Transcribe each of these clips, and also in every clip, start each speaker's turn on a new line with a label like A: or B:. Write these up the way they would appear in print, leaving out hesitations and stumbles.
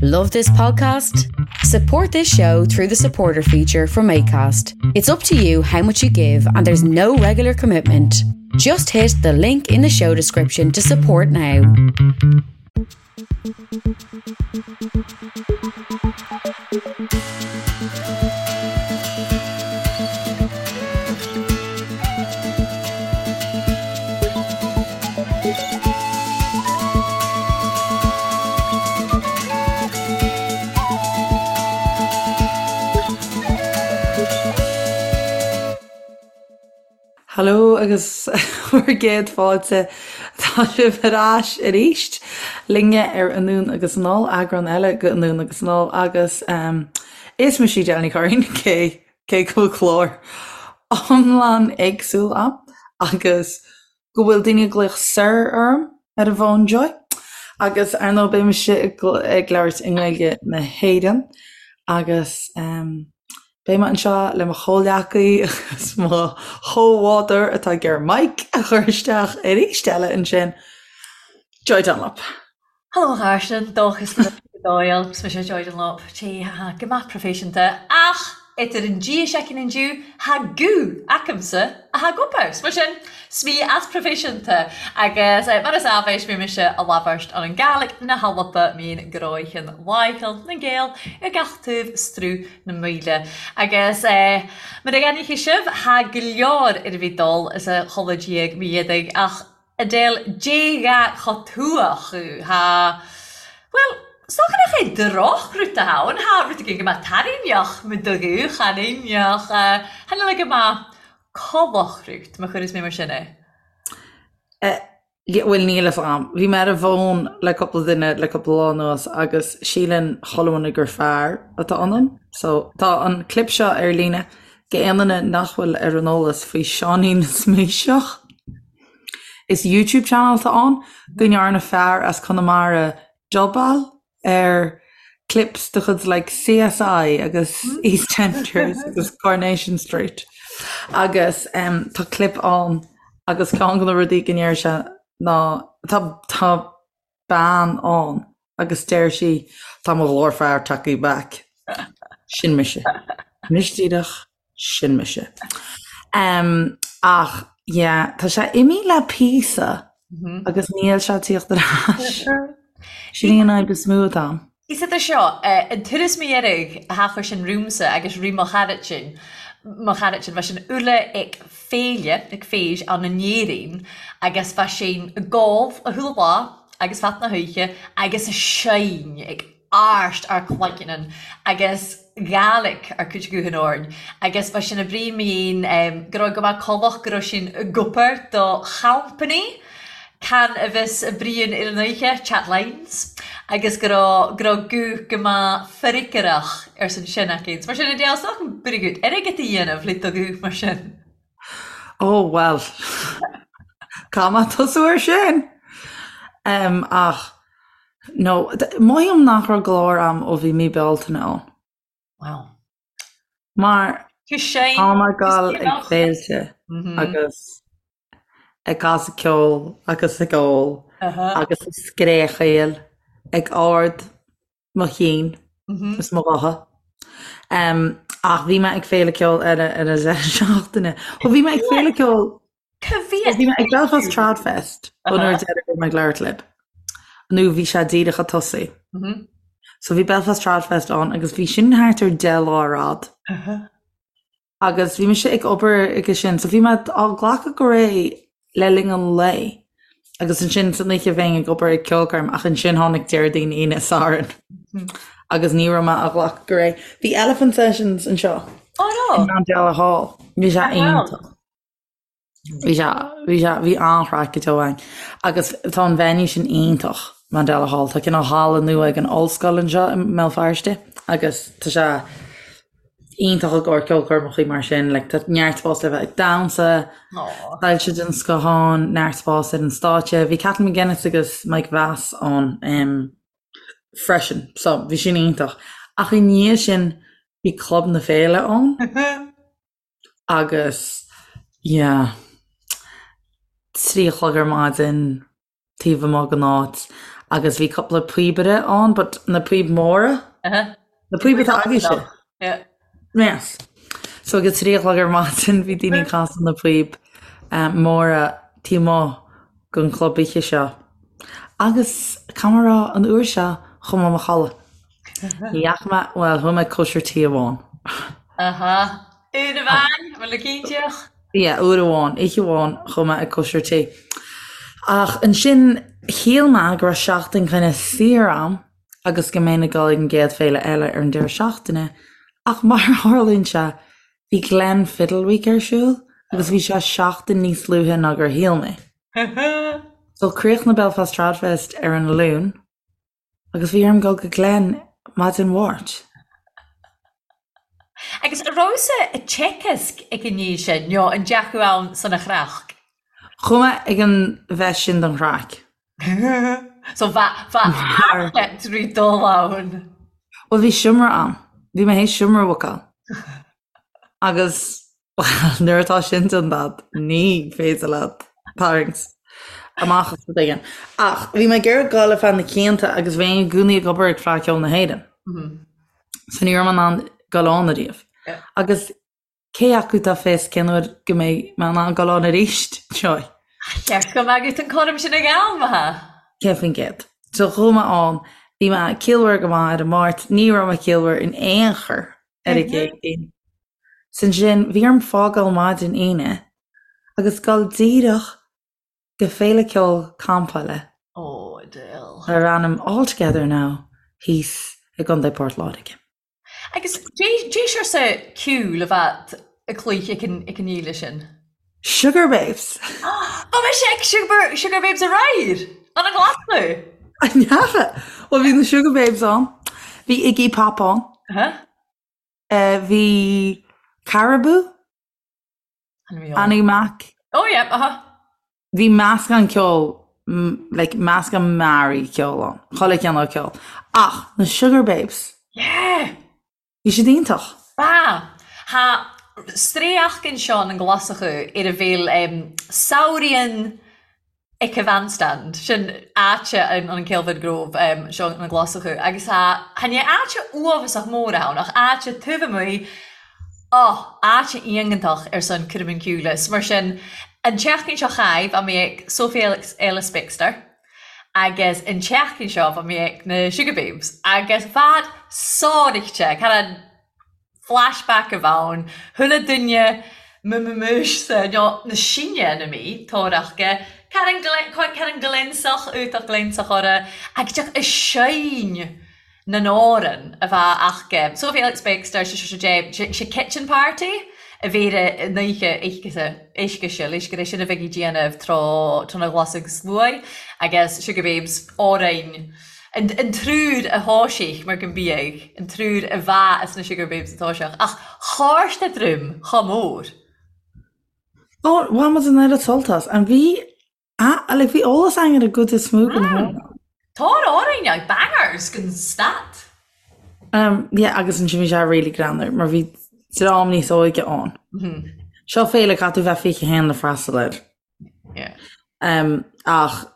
A: Love this podcast? Support this show through the supporter feature from ACAST. It's up to you how much you give, and there's no regular commitment. Just hit the link in the show description to support now.
B: Hello agus bhur gcéad fáilte. Tá sibh ar ais arís linne ar Anonn agus Anall, eagrán eile de Anonn agus Anall agus is mise Edel Ní Churraoin, cé cé go bhfuil clár iomlán éagsúil a'm agus go bhfuil daoine ag glaoch Sir orm ar an bhfón Joy. Agus ar ndóigh beidh mise ag labhairt i nGaeilge na hÉireann agus beidh mé anseo le mo chomhghleacaí agus mo chomhbhádóir atá ag iarraidh mic a chur isteach arís eile ansin, Joy Dunlop.
C: Hello a chàirdean, dòchas le Doyle, 's mise Joy Dunlop, Tè tha gu math profaiseanta, ach eadar an dìa seicean an-diu, tha guth acamsa a tha ag obair. 'S mar sin, 's mi as profaiseanta, agus mar as àbhais mi mise a làbhairt ann an Gàidhlig na h-Alba mín gnòithean làitheil nan Gael air gach taobh sruth na Maoile. Agus mar a dh'aithneochaidh sibh, tha gu leòr air a bhith dol as a chodladh diaidh mi éadaigh, ach Edel, Dè-gha cho tuath thu? Tha, bhuel, 's dòcha nach e drochrud a th' ann, tha rud eigin gu math tairngneach mu do ghuth, chan ein, ach chan eil e gu math collachrut, ma chuireas mé mar sin é.
B: Eh, bhuel, níl fhios a'm. Bhí mé ar an bhfón le cúpla duine le cúpla lá anuas agus síleann chuile dhuine gur fear atá ionam. So, tá an clip seo ar líne d'aon duine nach bhfuil ar an eolas faoi Seáinín na Sméiseach. Is YouTube channel atá ann go ndearna fear as Conamara dubáil ar clips de chuid like CSI agus EastEnders agus Coronation Street agus um, tá clip ann agus ceann de na rudaí go ndeir sé ná tá tá bean ann agus deir sí tá mo ghlór fear tagtha back. Sin mise. Anois díreach Sin mise. Um, ach, yeah, tá sé imithe le píosa agus níl sé ag tíocht ar ais. Sin í an fhadhb is mó atá a'm.
C: Is idir seo, an turas mo dheiridh a thachair sin romhamsa agus roimh mo charaid-sin, mo charaid-sin, bha sinn uile ag féile, ag feis ann in Éirinn agus bha sinn ag gol a chuile lá agus fad na hoíche agus a' seinn ag àirsd àr cloigeannan agus Gàidhlig àr cuid guthann orainn agus bha sinn a' bruidhinn mi fhèin gu robh gu math collach gu robh sinn ag obair do champany can a bhios a' bruidhinn air an oidhche, Chat Lines, agus gu robh gu robh guth gu math freagrach airson sin aca. Mar sin Edel, 's dòcha buireadh airgead a dhéanamh le do ghuth mar sin.
B: Ó, bhuel, caithfidh mé tosú air sin! Ach, no, mothaím nach raibh glór a'm ó bhí mí Bealtaine ann.
C: Wow.
B: Mar tá mé ag dul ag féilte agus ag casadh ceoil agus ag ól agus ag scréachaíl ag ard mo chinn is mo ghutha. Ach bhí mé ag féile ceoil eile ar an deireadh seachtaine. Ó bhí mé ag féile ceoil Bhí mé ag Belfast Trad Fest an uair deiridh a bhí mé ag labhairt libh. Nó bhí sé díreach ag tosaí. So bhí Belfast Trad Fest ann agus bhí sin thart ar 10 lá ar fhad. Agus bhí mise ag obair aige sin, so bhí mé á glacadh go réidh le linn an lae. Agus ansin san oíche bheinn ag obair ag ceolchoirm ach ansin tháinig Déardaoin, Aoine, Satharn agus ní raibh mé á ghlacadh go réidh. Bhí Elephant Sessions anseo
C: in
B: Mandela Hall. Bhí sé iontach. Bhí sé, bhí sé, bhí an-chraic go deo ann. Agus tá an venue sin iontach, Mandela Hall. Tá cineál halla nua ag an ollscoil anseo i mBéal Feirste agus tá sé iontach i gcomhair ceolchoirmeacha mar sin. Like, tá neart spás le bheith ag damhsa, soilse den scoth ann, neart spás ar an stáitse. Bhí Kathleen McGuinness agus Mike Vass ann um, freisin, so bhí sin iontach. Ach i ndiaidh sin bhí Club na Féile ann. Agus yeah, 3 a chlog ar maidin, taobh amuigh den áit. Agus bhí cúpla píobaire ann, but na píob móra. Na píob atá agaibhse.
C: Yeah.
B: Yes. So ag a 3 a chlog ar maidin bhí daoine ag casadh na píob móra taobh amuigh den chlub oíche seo. Agus caithfidh mé a rá an uair seo chuaigh mé i mo chodladh. Ní dheachaigh mé, bhuel chuaigh mé ag cóisir tí amháin.
C: Aha. Uair amháin, bhfuil a cinnteach?
B: Yeah, uair amháin, oíche amháin chuaigh mé ag cóisir tí. Ach ansin shíl mé go raibh seachtain kind of saor a'm agus go mbeinn ag dul ag an gcéad féile eile ar an deireadh seachtaine, ach mar a tharlaíonn sé, bhí Glen Fiddle Week ar siúl agus bhí sé seachtain níos luaithe ná gur shíl mé. So chríochnaigh Belfast Tradfest ar an Luan agus bhí orm dul go Glen maidin Mháirt.
C: Agus an rabhas-sa ag Teagasc ag an ndiaidh sin, nó an ndeachaigh ann san a chraic?
B: Chuaigh mé ag an bhfeis sin don chraic.
C: So bha trí dul ann.
B: Bhuel bhí seomra ann. Bhí mé théis seomra a bhookáil. Agus bhuel nuair atá sin déanta agat ní féidir leat tarraingt amach as rud éigin. Ach bhí mé ag iarraidh dul ar feadh na cianta agus bheinn i gcónaí ag obair ag Fleadh Cheoil na hÉireann. So ní raibh mé in ann dul ann ariamh. Agus Cé acu atá fios cén uair go mbeidh mé in ann dul ann arís, Joy?
C: Cheart go mbeadh an cúram sin ag am, ha?
B: 100%. So chuaigh mé ann, bhí mé ciallmhar go maith ar an Máirt, ní raibh mé ciallmhar in aon chor ar an gCéadaoin. So ansin bhí orm fágáil maidin Aoine agus dul díreach go féile ceoil campála
C: Oh, Adele.
B: Darb ainm All Together Now thíos i gContae Port Láirge.
C: Agus dé seo ceol a bheith ag cloích ag an fhéile sin?
B: Sugababes!
C: Bha mise ag Sugababes aréir! Ann an Ghlaschú!
B: An ndeacha? Bhuel bhí na Sugababes ann, bhí Iggy Pop ann, bhí Caribou, Annie Mac.
C: Oh yeah, aha.
B: Bhí meascán ceoil, like meascán mearaí ceoil ann, chuile chineál ceoil. Ach na Sugababes.
C: Yeah!
B: Bhí siad iontach.
C: Ba. Tha straidheachd ann an Ghlaschú ar a bheil samhraidhean Ag a Bandstand, sin áite an an Kelvingrove seo na Glaschú agus tha chan e áite uabhasach mór ann ach áite taobh amuigh, oh, áite iongantach ar son cúram an ceoil is mar sin an tseachtain seo chaith bha mi ag Sophie Ellis-Bextor agus an tseachtain seo bha mi ag na Sugababes agus bhad sáraichte, cad an flashback a bh' ann, chuile duine m-m-m-mise nó na sinne na mí, tóraíocht, cad an cad an glionsach iontach glionsach orra agus deoch a seinn na n-amhran a bheadh aca. Sophie Ellis-Bextor sé seo sé sé Kitchen Party a bhí ar an oíche oíche oíche leis gur é sin a bheidh ag déanamh tráth tráth na Glasach Sluaigh agus Sugababes amhrain An triúr a thoisigh mar go mbíodh an triúr a bha as na Sugababes a toiseach, ach chàrst a druim cho mór.
B: Ó, bhain muid an oiread sult as. And bhí, ah, like bhí eolas againn ar an gcuid is mó den amhrán.
C: Tá amhrain like bangers gan stad.
B: Um, yeah, agus ansin bhí sé really greannmhar mar bhí dream níos óige ann. Seo féile caithfidh tú bheith 21 le freastal air.
C: Yeah.
B: Um, ach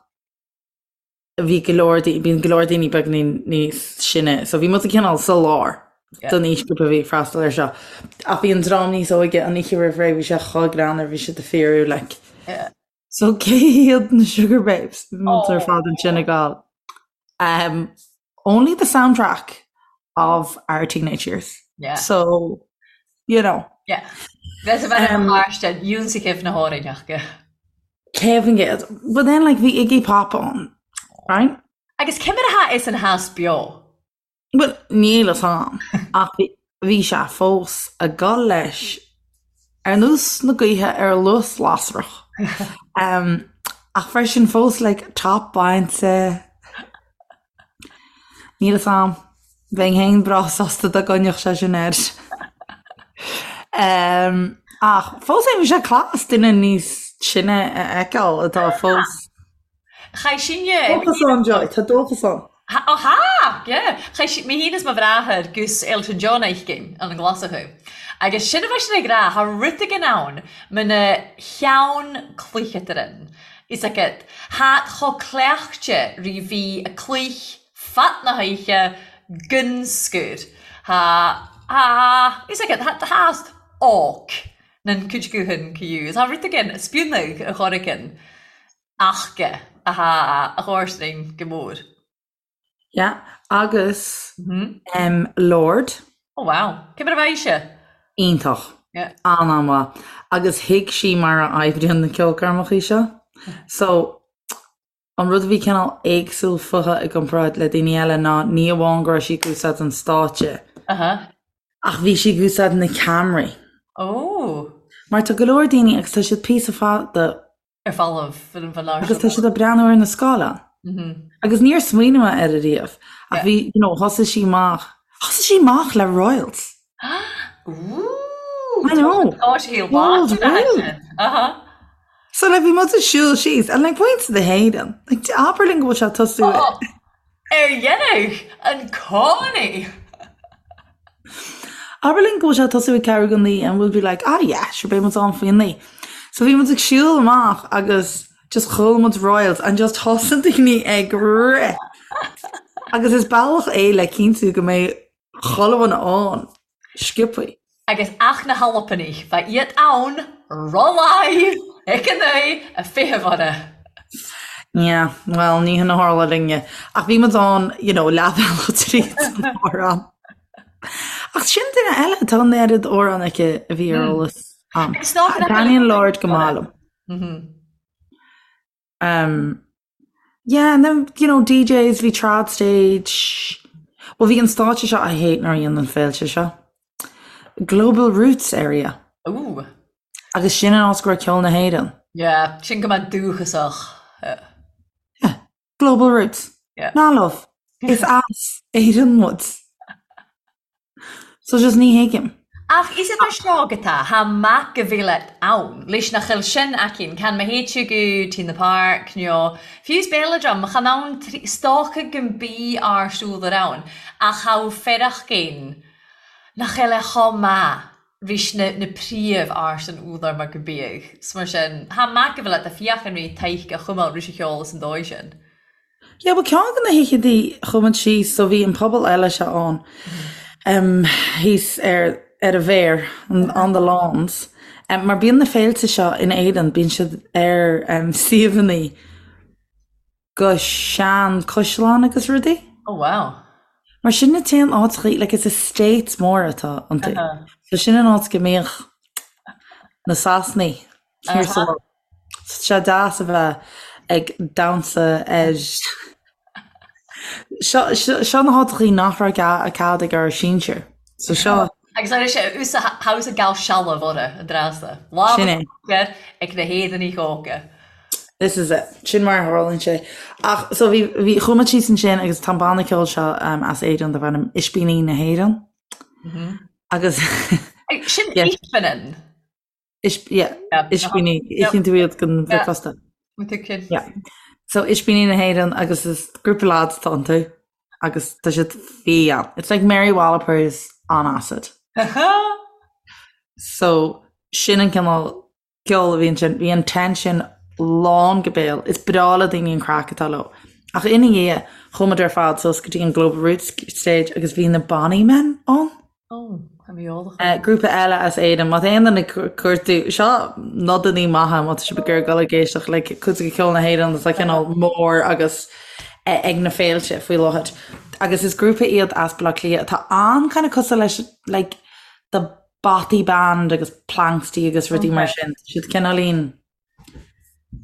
B: bhí go leor, bíonn go leor daoine beagáinín níos sine, so bhí muid cineál sa lár don aoisghrúpa a bhí ag freastal air seo. Ach bhí an dream níos óige an oíche roimh ré, bhí sé chomh greannmhar, bhí siad ag fíorú like. So cé hiad na Sugababes? Bhí muid ar fad ansin ag gabháil. Um, only the soundtrack of our teenage years.
C: Yeah.
B: So, you know.
C: Yeah. Bheith a bheith um, ionsaithe na háirithe.
B: 100%. But then like bhí Iggy Pop ann, right?
C: Agus cé mar atá is an theas beo?
B: Well, níl fhios a'm, ach bhí bhí sé fós ag dul leis ar nós na gaoithe ar luas lasrach. Um, ach freisin fós like top bainte. Níl fhios a'm. Bheinn féin breá sásta dá gcoinneodh sé sin air. Ach fós féin bhí sé class duine níos sine a fheiceáil atá fós.
C: Chaith sinne.
B: Dóchas ann, Joy, tá dóchas ann.
C: Ó tha! Yeah. Chaith mé féin is mo bhráthair gus Elton John oíche ann an Ghlaschú. Agus sin a bheidh sin ag rá, tha rud eigin ann muna cheann cluiche ann. Fhios agat, tha cho cleachta ri bhith a cluich fad na hoidhche gun scur. Tha, tha, fhios agat, tha, tha óc nan cuid guthan cu. Tha rud again a spionadh a chorracan achga a tha a chomharsanainn go mór.
B: Yeah, agus em Lorde.
C: Oh wow. Cé mar a bheidh sé?
B: Iontach.
C: Yeah.
B: An-an-mhaith. Agus thuig sí mar a oibríonn na ceolchoirmeacha seo. So, an rud a bhí cineál éagsúil fúithi i gcomparáid le daoine eile ná ní amháin go raibh sí ag úsáid an stáitse,
C: Uh-huh.
B: ach bhí sí ag úsáid na ceamaraí.
C: Oh.
B: Mar tá go leor daoine agus tá siad píosa fada
C: ar falamh ar an bhfear
B: Agus tá siad ag breathnú ar na scáileáin. Agus níor smaoinigh mé air ariamh. Ach bhí, you know, thosaigh sí amach, thosaigh sí amach le Royals.
C: Ooh!
B: I know.
C: Tá sí
B: World Royal.
C: Aha.
B: So like bhí muid ag siúl síos and like muintir na hÉireann. Like abair linn go bhfuil sé ag tosú.
C: Oh, ar dhéanamh an cónaí.
B: Abair linn go bhfuil sé ag tosú ag ceathrú go naoi and we'll be like ah yeah sure beidh muid ann faoi naoi. So bhí muid ag siúl amach agus just chuala muid Royals and just thosaigh daoine ag rith. Agus is bealach é le cinntiú go mbeidh chuile dhuine ann sciobthaí.
C: Agus ach na hAlbanaigh, bha iad ann ro-laigh ag an naoi a feitheamh orra.
B: Yeah, well, ní hin a tharla linne. Ach bhí muid ann, you know, leathbhealach tríd an amhrán. Ach sin duine eile, tá an oiread amhrán aici a bhí ar eolas a'm.
C: Agus ná
B: Taitníonn Lorde go maith liom. Um, yeah, and then, you know, DJs, bhí trad stage. Well, bhí an stáitse seo, I hate nuair a dhéanann féilte seo. Global Roots area.
C: Ooh.
B: Agus sin an áit go raibh ceol na hÉireann.
C: Yeah, sin go maith dúchasach.
B: Yeah. Global Roots.
C: Yeah.
B: Ná love. Is as Éirinn muid. So just ní thuigim.
C: Ach is idir seo go tá, tha mac go bhféile ann, leis nach eil sin aicinn, can ma théid tú go T in the Park nó fiú 's Belladrum, chan ann stoca go mbí ár siúl ar ann, ach tha fearachgain nach eil e chomh maith ris na na príomh ársan údar mar go bíodh. 'S mar sin, tha mac go bhféile tá fiach an rí taidhg a chumail ris a cheol is an dóigh sin.
B: Yeah, bhuel ceann de na hoícheantaí chuaigh muid síos, so bhí an puball eile seo ann em thíos ar ar an bhféar, on the lawns, em mar bíonn na féilte seo in Éirinn, bíonn siad ar em suíomhanna go sean caisleáin agus rudaí.
C: Oh wow.
B: Mar sin na t-aon áiteachaí, like is estates móra atá iontu. So sin an áit go mbíodh na Sasanaigh thiar sa bhaile. Tá sé deas a bheith ag damhsa ar Seo seo na háiteachaí nach raibh cead ag ár sinsir. So seo.
C: Agus ar sé usa house a gal sealbh orra an dreasa. Lámh
B: Sin é.
C: air ag na hÉireannaigh óga.
B: This is it. Sin mar a tharlaíonn sé. Ach so bhí bhí chuaigh muid síos ansin agus tá an banna ceoil seo um, as Éirinn darb ainm Ispíní na hÉireann. Agus
C: Sin
B: Yeah.
C: Ispinin.
B: Ispíní, íocann tú iad don bhricfeasta. Yeah. So Ispíní na hÉireann agus is grúpa lads atá iontu agus tá siad fiáin. It's like Mary Wallopers on acid. So sin an cineál ceoil a bhí ansin. Bhí an tent sin lán go béal. Is breá le daoine an craic atá leo. Ach ina dhiaidh, chuaigh muid ar fad suas go dtí an Global Roots stage agus bhí na Bonny Men ann.
C: Ó, tá mé eolach.
B: Grúpa eile as Éirinn, má tá aon duine ag cuartú, seo nodannaí maithe má tá sibh ag iarraidh dul ag éisteacht le cuid de cheol na hÉireann atá cineál mór agus ag na féilte faoi láthair. Agus is grúpa iad as Baile Átha Cliath atá an-kind of cosúil leis like The Bothy Band agus Planxty agus rudaí mar sin. Tá siad cineáilín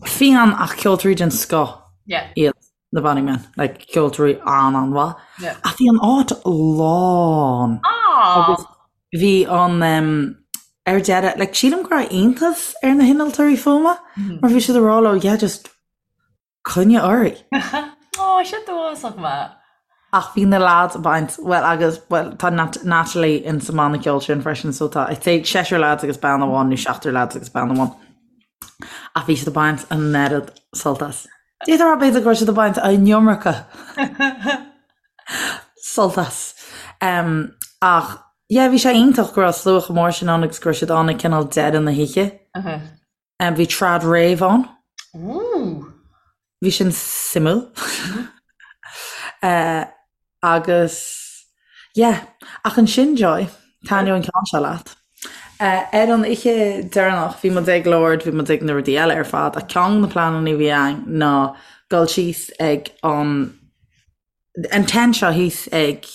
B: fiáin ach ceoltóirí den scoth iad na Bonny Men, like ceoltóirí an-an-mhaith. Ach bhí an áit lán. Agus bhí an um, ar deireadh, like sílim go raibh iontas ar na hinnealtóirí fuaime mar bhí siad ag rá leo, yeah, just Coinnigh oraibh.
C: Ó, sin dóchasach maith.
B: Ach bhí na lads ag baint, bhuel agus, bhuel tá Natalie in sa mbanna ceoil sin freisin so tá, I'd say seisear lads agus bean amháin nó seachtar lads agus bean amháin. Ach bhí siad ag baint an oiread sult as. D'fhéadfá a rá b'fhéidir go raibh siad ag baint an iomarca sult as. Um, ach yeah, bhí sé iontach go raibh slua chomh mór sin ann agus go raibh siad ann ag cineál deireadh na hoíche.
C: Uh -huh.
B: Bhí trad rave ann.
C: Ooh.
B: Bhí sin suimiúil. Agus yeah, ach ansin Joy, taitneoidh an ceann seo leat. Ar an oíche deireanach bhí muid ag Lorde, bhí muid ag na rudaí eile ar fad, ach ceann de na pleananna a bhí againn ná dul síos ag an an tent seo thíos ag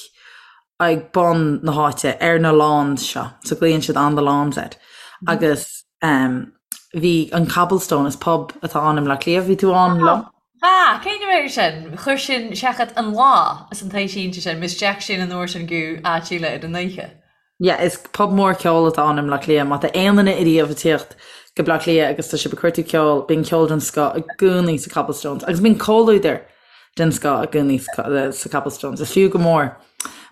B: ag bun na háite ar na lawns seo, so glaonn siad on the lawns air agus um, bhí an Cobblestone is pub atá ann i mBleá Cliath, bhí tú ann liom?
C: Ah, cén uair sin? Chuir sin seachad an lá is an taobh sínte sin, Miss Jack sin an uair sin go áit eile ar an oíche.
B: Yeah, is pub mór ceoil atá ann i mBleá Cliath. Má tá aon duine ariamh ag tíocht go Bleá Cliath agus tá sibh ag cuartú ceoil, bíonn ceol den scoth i gcónaí sa Cobblestones. Agus bíonn comhluadar den scoth i gcónaí sa Cobblestones. Is fiú go mór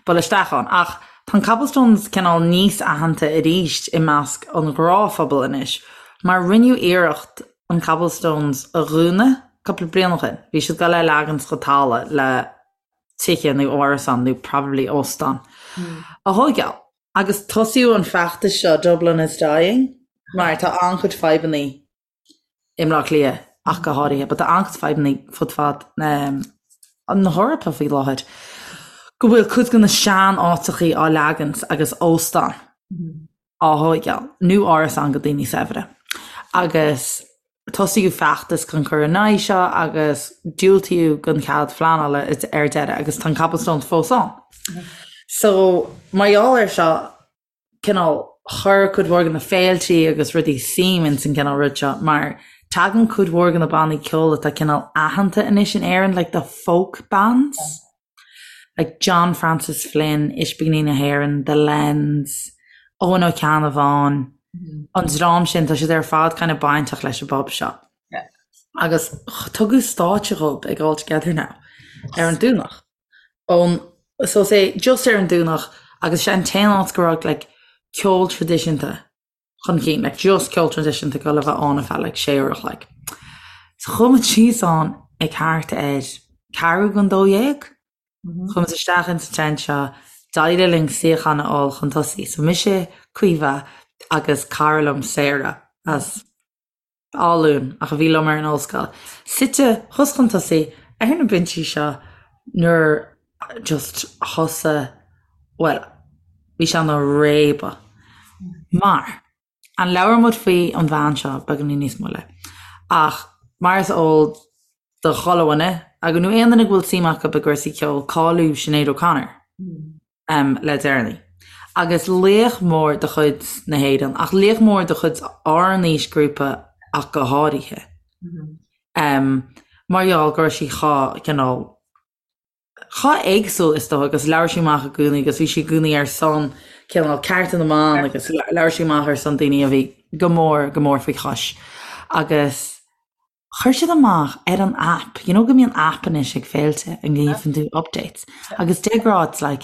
B: dul isteach ann. Ach tá an Cobblestones cineál níos aitheanta arís i measc an ghnáthphobail anois, mar rinneadh iarracht an Cobblestones a dhúnadh cúpla bliain ó shin. Bhí siad ag dul é a leagan go talamh le tithe nó árasán nó probably óstán a thóigeáil. Agus tosaíodh an feachtas seo Dublin is Dying mar tá an-chuid fadhbanna i mBleá Cliath ach go háirithe, but tá an-chuid fadhbanna fud fad na hEorpa faoi láthair go bhfuil cuid de na sean-áiteachaí á leagaint agus óstán á thóigeáil, nó árasán go daoine saibhre. Agus tosaíodh feachtas chun cur in aghaidh seo agus diúltaíodh don chead phleanála ar deireadh agus tá an Cobblestones fós ann. So, mar gheall air seo, cineál, chuir cuid mhór de na féiltí agus rudaí suim ins an gcineál rud seo mar tagann cuid mhór de na bannaí ceoil atá cineál aitheanta anois in Éirinn, like the folk bands. Like John Francis Flynn, Ispíní na hÉireann, The Lens, Eoin Ó Ceannabháin, an dream sin, tá siad ar fad kind of bainteach leis an bpub seo. Agus tugadh stáitse dhóibh ag All Together Now ar an Domhnach. Ón, so say, just ar an Domhnach agus sé an t-aon áit go raibh like ceol traidisiúnta chun cinn, like just ceol traidisiúnta ag dul a bheith ann ar feadh like sé uair a chloig. So chuaigh muid síos ann ag thart ar ceathrú don 12. Chuaigh muid isteach ins an tent seo, d'éirigh linn suíochán a fháil chun tosaigh. So mise, Caoimhe agus cara liom Sarah as Áth Luain ach a bhí liom ar an ollscoil, suite thuas chun tosaigh ar na binsí seo nuair just thosaigh, bhuel, bhí sé ina réabadh. Mar, an labhróidh muid faoi an bhean seo beagáinín níos moille, ach mar is eol do chuile dhuine, agus nó aon duine go bhfuil suim acu i gcúrsaí ceoil, cailleadh Sinéad O'Connor. le deireanaí. Agus laoch mór de chuid na hÉireann, ach laoch mór de chuid ár n-aoisghrúpa ach go háirithe. Mar gheall go raibh sí chomh cineál, chomh éagsúil is dócha agus labhair sí amach i gcónaí agus bhí sí i gcónaí ar son cineál cearta na mban agus labhair sí amach ar son daoine a bhí go mór, go mór faoi chois. Agus Chuir siad amach ar an app, you know go mbíonn app anois ag féilte an ngeobhann tú updates agus de ghnáth it's like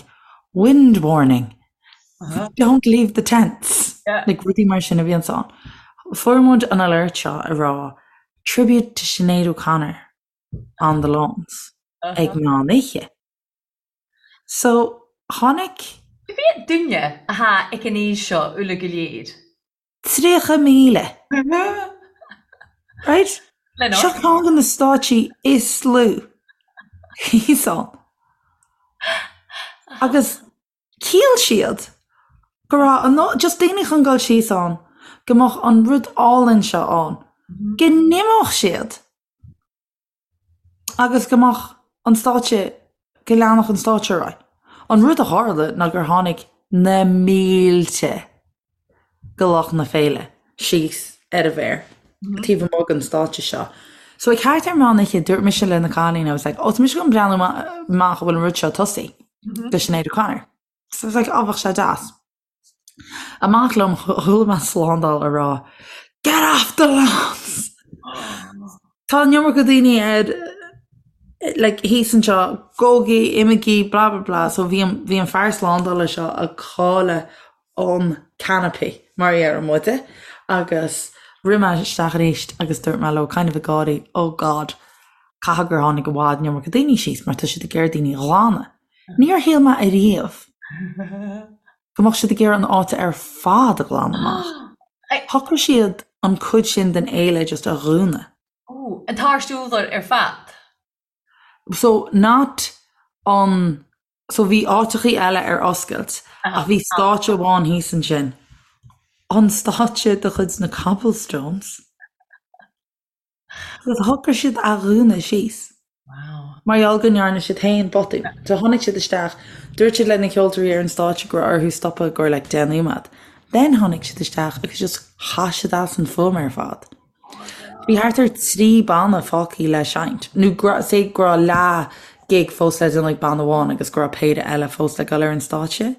B: wind warning, don't leave the tents, like rudaí mar sin a bhíonns ann. Fuair muid an alert seo ag rá tribute to Sinéad O'Connor on the lawns ag meán oíche. So tháinig.
C: Cé mhéad duine atá ag an aois seo uile go léir?
B: 30,000. Right? Seo ceann de na stáitsí is lú thíos ann. Agus shíl siad go raibh an, just daoine chun dul síos ann, go mbeadh an rud álainn seo ann, go n-imeodh siad. agus go mbeadh an stáitse, go leanfadh an stáitse ar aghaidh. An rud a tharla ná gur tháinig na mílte de lucht na féile síos ar an bhféar taobh amuigh den stáitse seo. So ag thart ar meán oíche dúirt mise le na cailíní, I was like, oh tá mise chun breathnú amach an bhfuil an rud seo ag tosaí do Sinéad O'Connor. So I was like, oh bheadh sé deas. Amach liom, chuala mé slándáil ag rá Get off the lawns! Tá an iomarca daoine ar like thíos anseo, gabhaigí, imígí, blah blah blah. So bhí an bhí an fear slándála seo ag cailleadh an canopy mar a deireann muide agus rith mé isteach arís agus dúirt mé leo kind of ag gáirí oh God caithfidh gur tháinig i bhfad an iomarca daoine síos mar tá siad ag iarraidh daoine a ghlanadh. Níor shíl mé ariamh go mbeadh siad ag iarraidh an áit ar fad a ghlanadh amach. Shocraigh siad an cuid sin den fhéile just a dhúnadh.
C: Ooh, an t-árst urlár ar fad?
B: So not an, so bhí áiteachaí eile ar oscailt ach bhí stáitse amháin thíos ansin. An stáitse de chuid na Cobblestones. Agus shocraigh siad a dhúnadh síos.
C: Wow.
B: Mar gheall go ndearna siad féin botún. So tháinig siad isteach, dúirt siad le na ceoltóirí ar an stáitse go raibh orthu stopadh i gcomhair like 10 nóiméad. Then tháinig siad isteach agus just chaith siad as an fuaim ar fad. Bhí thart ar 3 banna fágtha le seinnt, nó go raibh, say go raibh leath gig fós le déanamh ag banna amháin agus go raibh péire eile fós le dul ar an stáitse.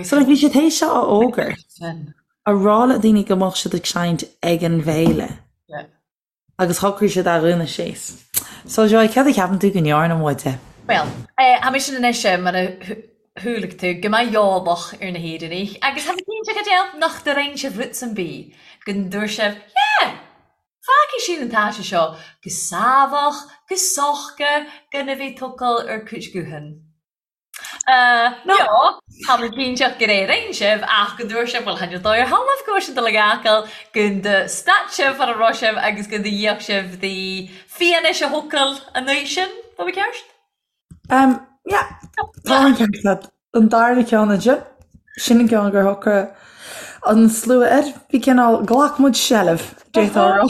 B: So like bhí siad théis seo a fhógairt, a rá le daoine go mbeadh siad ag seinnt ag an bhféile agus shocraigh siad a dhúnadh síos. So Joy, céard a cheapann tú go ndearna muide?
C: Bhuel, tha mise anois mar a chualaidh tú, gu math eòlach air na h-Èireannaich, agus tha mi cinnteach Edel nach do rinn sibh rud sam bith gun dubhairt sibh, yeah, fágfaidh sinn an t-áite seo gu sámhach, gu sochda, gan a bheith tocail air cuid guthan. No, tha mi cinnteach gur é rinn sibh, ach gun dubhairt sibh, bhuel, chan eil dòigh air thalamh gu bhfuil sinn dol ag fhàgail, gun do stad sibh far a robh sibh agus gun do dh'íoc sibh dhi fianaise thocail an oích sin, tha mi ceart?
B: Um, yeah, tá an ceart agat. An darna ceann ansin, sin an ceann gur shocraigh an slua air. Bhí cineál, ghlac muid seilbh, d'fhéadfá a rá,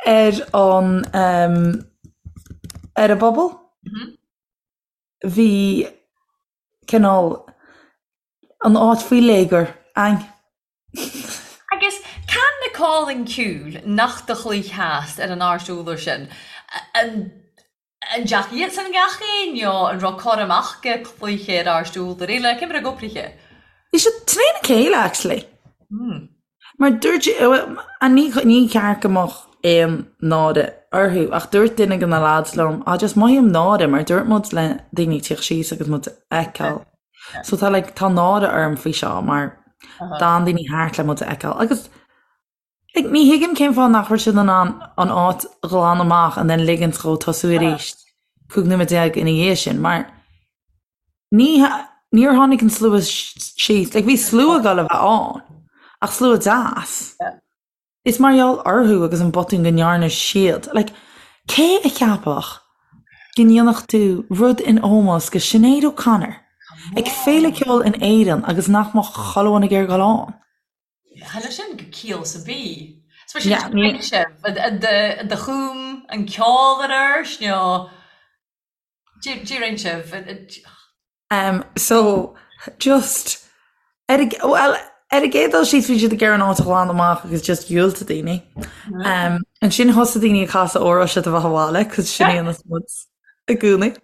B: ar an, um, ar an bpobal. Bhí cineál an áit faoi léigear againn.
C: Agus can na còmhlan ceoil nach do chluich-theas air an àrd urlár sin, an dteachaidh iadsan gach aon nó an raibh cur amach gu cluiche ar àrd urlár eile, cé mar a gcopraithe?
B: Bhí siad trína chéile actually. Mar dúirt, ní ní ceart go mbeadh aon náire orthu ach dúirt duine de na lads liom, ah just mothaím náire mar dúirt muid le daoine tíocht síos agus muid a fheiceáil. So tá like tá náire orm faoi seo mar d'fhan daoine thart le muid a fheiceáil agus like ní thuigim cén fáth nach raibh siad in ann an áit a ghlanadh amach and then ligint dhó tosú arís 15 nóiméad ina dhiaidh sin mar ní níor tháinig an slua síos like bhí slua ag dul a bheith ann ach slua deas. Is mar gheall orthu agus an botún go ndearna siad. Like, cé a cheapfadh go ndéanfadh tú rud in ómós go Sinéad O'Connor ag féile ceoil in Éirinn agus nach mbeadh chuile dhuine ag iarraidh dul ann?
C: Chan eil sin gu ciall sam bith. 'S mar sin Yeah, ní. sibh, an do chúm an ceol air airst nó dè rinn sibh?
B: Um, so, just, ar a, well, ar an gcéad dul síos bhí siad ag iarraidh an áit a ghlanadh amach agus just dhiúltaigh daoine. Um, ansin thosaigh daoine ag casadh Óró Sé do Bheatha 'Bhaile, cos sin é an muid i gcónaí.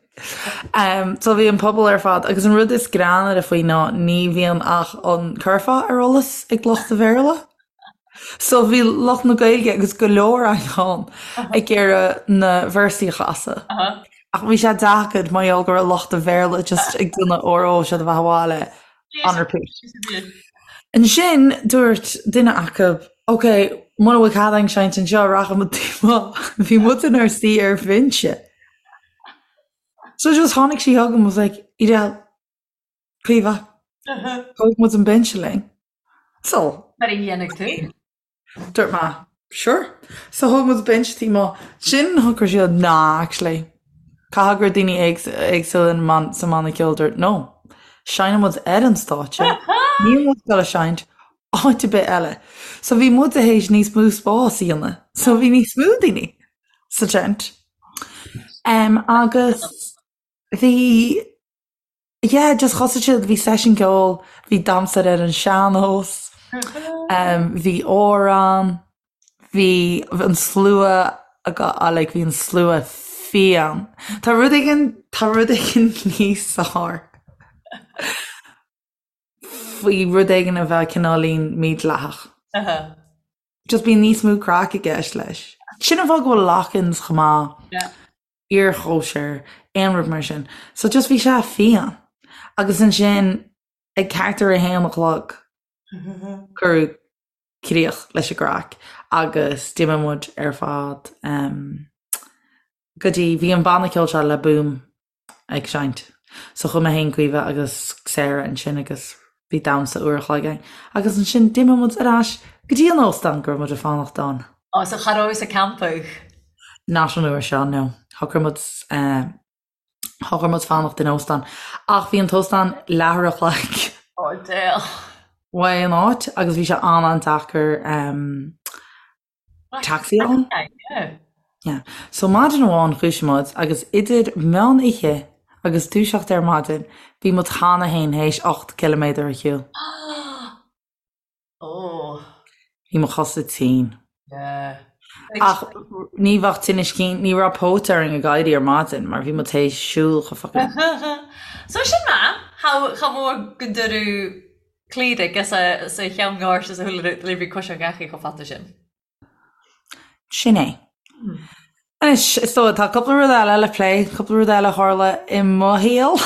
B: Um, so bhí an pobal ar fad, agus an rud is greannaire faoi ná ní bhíonn ach an curfá ar eolas ag lucht an Bhéarla. So bhí lucht na Gaeilge agus go leor againn ag iarraidh na véarsaí a chasadh. Ach bhí sé deacair mar gheall go raibh lucht an Bhéarla just ag déanamh Óró Sé do Bheatha 'Bhaile on repeat. Ansin dúirt duine acu, ok, muna bhfuil cead againn seinnt anseo, rachaidh muid taobh amuigh. Bhí muid inár suí ar bhinse. So just tháinig sí chugam was like, Edel, Caoimhe, tógfaidh muid an binse linn. So.
C: Mar a dhéanfaidh tú.
B: Dúirt mé, Sure. So thóg muid binse taobh amuigh. Ansin shocraigh siad, nah, actually. Caithfidh go raibh daoine éagsúla sa mbanna ceoil dúirt, no. Seinneann muid ar an stáitse. Níl muid ag dul a seinnt áit ar bith eile. So bhí muid théis níos mó spás a dhéanamh. So bhí níos mó daoine sa tent. Um, agus bhí Yeah, just thosaigh siad, bhí seisiún ceoil, bhí damhsa ar an sean-nós, bhí amhrán, bhí an slua like bhí an slua fiáin. Tá rud éigin, tá rud éigin níos fearr faoi rud éigin a bheith cineáilín mídhleathach. Just bíonn níos mó craic i gceist leis. Sin an fáth go bhfuil lock-ins chomh maith. iarchóisir, aon rud mar sin. So just bhí sé fiáin. Agus ansin ag thart ar a haon a chlog cuireadh críoch leis an gcraic agus d'imigh muid ar fad um, go dtí bhí an banna ceoil seo Le Boom ag seinnt. So chuaigh mé féin Caoimhe agus Sarah ansin agus bhí damhsa uair a chloig againn. Agus ansin d'imigh muid ar ais. Go dtí an óstán go raibh muid ag fanacht ann.
C: Ó, so cha rabhais ag campadh?
B: Not an uair seo, no. Shocraigh muid, shocraigh muid fanacht in óstán. Ach bhí an t-óstán leathuair a chloig.
C: Ó, Dale.
B: Uaidh an áit agus bhí sé an-an-deacair taxi a fháil. Yeah. So maidin amháin dhúisigh muid agus idir meán oíche agus dúiseacht ar maidin bhí muid cheana féin théis 8 ciliméadar a shiúl.
C: Oh.
B: Bhí mo chosa tinn.
C: Yeah.
B: Ach ní bheadh tinneas cinn, ní raibh póit orainn ag éirí ar maidin mar bhí muid théis siúl chomh fucking.
C: So sin maith, cha mhór go dtuireadh Cliath is a cheann gáirt is a shúile le bhí cois an gheachaí chomh fada sin.
B: Sin é. Anois, is dóigh, tá cúpla rud eile le plé, cúpla rud eile a tharla i mo shaol.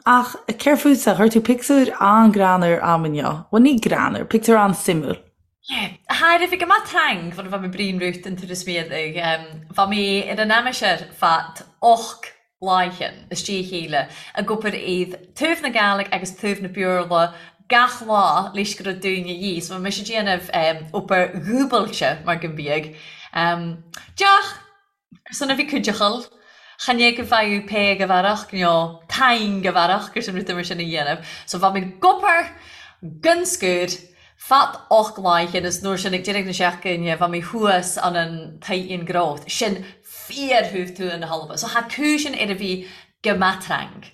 B: Ach céard fútsa? Chuir tú pictiúr an-greannmhar a'm inniu. Bhuel, ní greannmhar, pictiúr an-suimiúil.
C: Yeah. Thair bhí go maith trang fan bha mi Brian Ruth an turas miadaigh. Bha mi ar an aimsir fad och Laighean, istigh a chéile, ag obair iad taobh na Gàidhlig agus taobh na Beurla gach lá leis go raibh daoine dhíth. So bhí mise ag déanamh obair dhúbailte mar go mbíodh. Deoch ar son a bhí cuideachal, chan é go bhfaigheadh pé go bhfearach nó taing go bhfearach gur sin rud mar sin a dhéanamh. So bhí mé ag obair gan scor fad och Laighean is nuair sin ag deireadh na seachtaine bhí mé thuas an an Titan Growth. Sin fíor-thaobh tuath na hAlba. So tha cùisean air a bhith gu math trang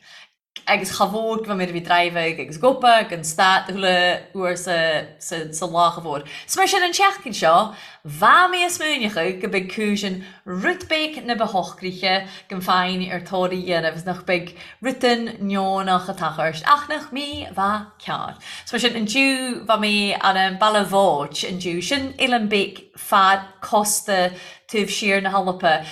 C: agus cha mhór gu bha mi air a bhith dràibhig agus ag obair gan stad chuile uair sa sa sa lá cha mhór. So mar sin an tseachtain seo bha mi a' smaoineachadh go beidh cùisean rud beag na ba shocraithe gon faighinn ar tóir a dhéanamh is nach beidh rudan neonach a tachairt ach nach mi bha cearr. So mar sin an diu bha mi ann an Baile Bhóit an diu sin Eilean Beag fad cósta taobh siar na hAlpa.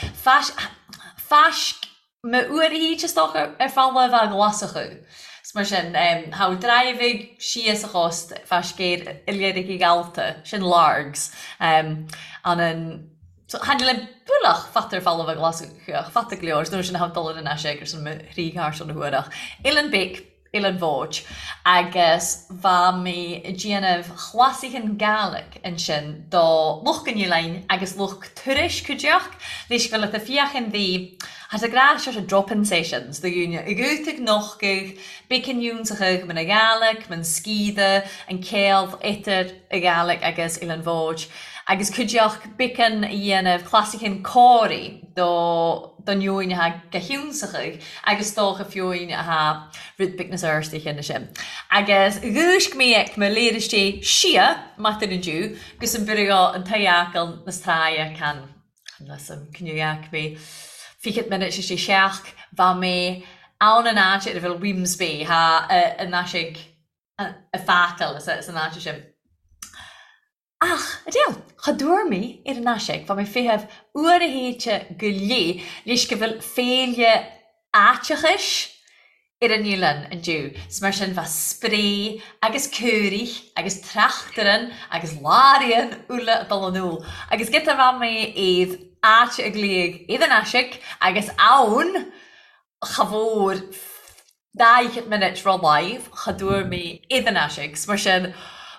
C: Faisc mo uair a thít is dócha ar falla a bheadh Glaschú. 'S mar sin, tha dràibhig síos a chóst faisc air Oileiric Ghallta, sin Largs, an an so tháinig le bualach fata ar falla a bheadh Glaschú ach fata go leor, 's nuair sin a thabh dul ar an ais ag ar son mo thrí charr na huair ach Eilean Beag Eilean Bhóit agus bha mi a' dèanamh chlasaichean Gàidhlig ansin do lucht an oileáin agus lucht turais cuideachd leis gur leat a fiachain bhí tha a gnàth sort of drop-in sessions do dhaoine ag út ag nochgadh beagan ionnsachaidh man a Ghàidhlig, man sgiodha, an ceol eadar a Ghàidhlig agus Eilean Bhóid agus cuideachd beagan a dhéanamh clasaichean còmhraidh do don fhiúin atá go hionnsachaidh agus dócha fiúin atá rud beag nas fheirste cheana sin. Agus dhúisc mé ag mo léir istigh sia maidin inniu gus an bhriogh an t-eacal nas tráighe can las an cnuach mé fichead minute istigh seach bha mé ann an áit ar a bhfuil Wemyss Bay thá an ais ag feacal san áit sin. Ach, a Dale, cha dtuar mé ar an ais bha mi feitheamh uair a théite go léith leis go bhfuil féile aiteachais ar an oileán indiu 's mar sin bha spré agus cúraich agus trachtaran agus laraíonn uile ag dul anall agus giota bha mé iad áit a glaodh iad an aisic agus ann cha mhór 40 minute ro live cha dtuar mé iad an aisic 's mar sin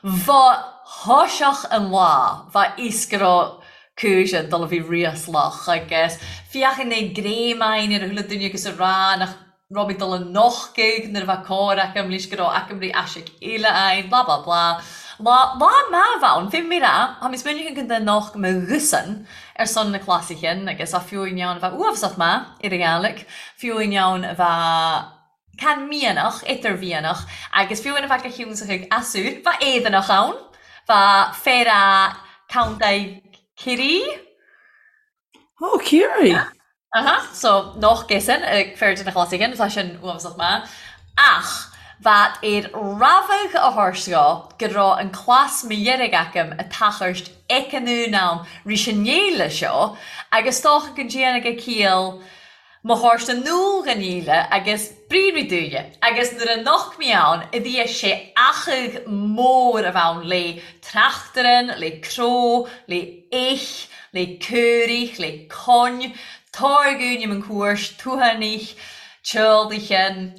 C: bha thoiseach an lá bha fhios go raibh cúiseann dul a bhí ríoslach agus féachann é gréamáin ar a chuile duine agus a rá nach raibh mé dul a nochtadh nuair a bheadh cóir acu leis go raibh aicmrí aisic eile ann blah blah blah. Lá lá maith a bheadh ann, fé mé rá, tá mé smaoineach an den noch mo ghusan ar son na clasaichean agus a fiú in ann a bheith uafásach maith ar an Ghàidhlig, fiú in ann a bheith can mianach, idirmhianach agus fiú in a bheith go hiúnsach ag asur, bheith éadanach ann, bheith féar a Contae Ciarraí.
B: Ó, Ciarraí!
C: Aha, so noch gesan ag fear de na clasaichean, tá sin uafásach maith. Ach bheadh ar rabhadh a thabhairt dho go raibh an clas mo dheirg agam a tachairt ag an am rís an fhéile seo agus dócha go ndéanfaidh a ciall mo thabhairt in iúl dhon fhéile agus briathraí dúinne agus nuair a nocht mé ann a bhí sé achadh mór a bheith ann le trachtairean, le cró, le eich, le cúraich, le coin, táirgiúin im an cuairt, tuathanich, teoldaighean,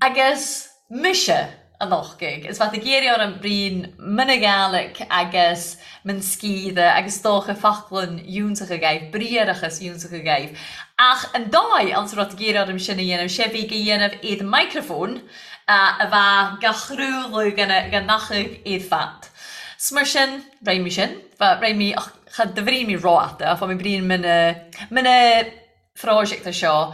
C: agus mise. An Eochaidh. Is bheadh ag iarraidh orm bruíon mna Gàidhlig agus man sgiatha agus 's dócha foclainn fhiúntacha dhaibh, briathrachas fhiúntacha dhaibh. Ach an dóigh anns a raibh ag iarraidh orm sin a dhéanamh, sé bhí ga dhéanamh iad micreafón a bheadh ga chraoladh ga n-eochaidh iad fad. 'S mar sin, rinn mi sin, rinn mi, ach cha do bhrí mi ró-fhada, ach bha mi bruíon mna, mna, phróiseachta seo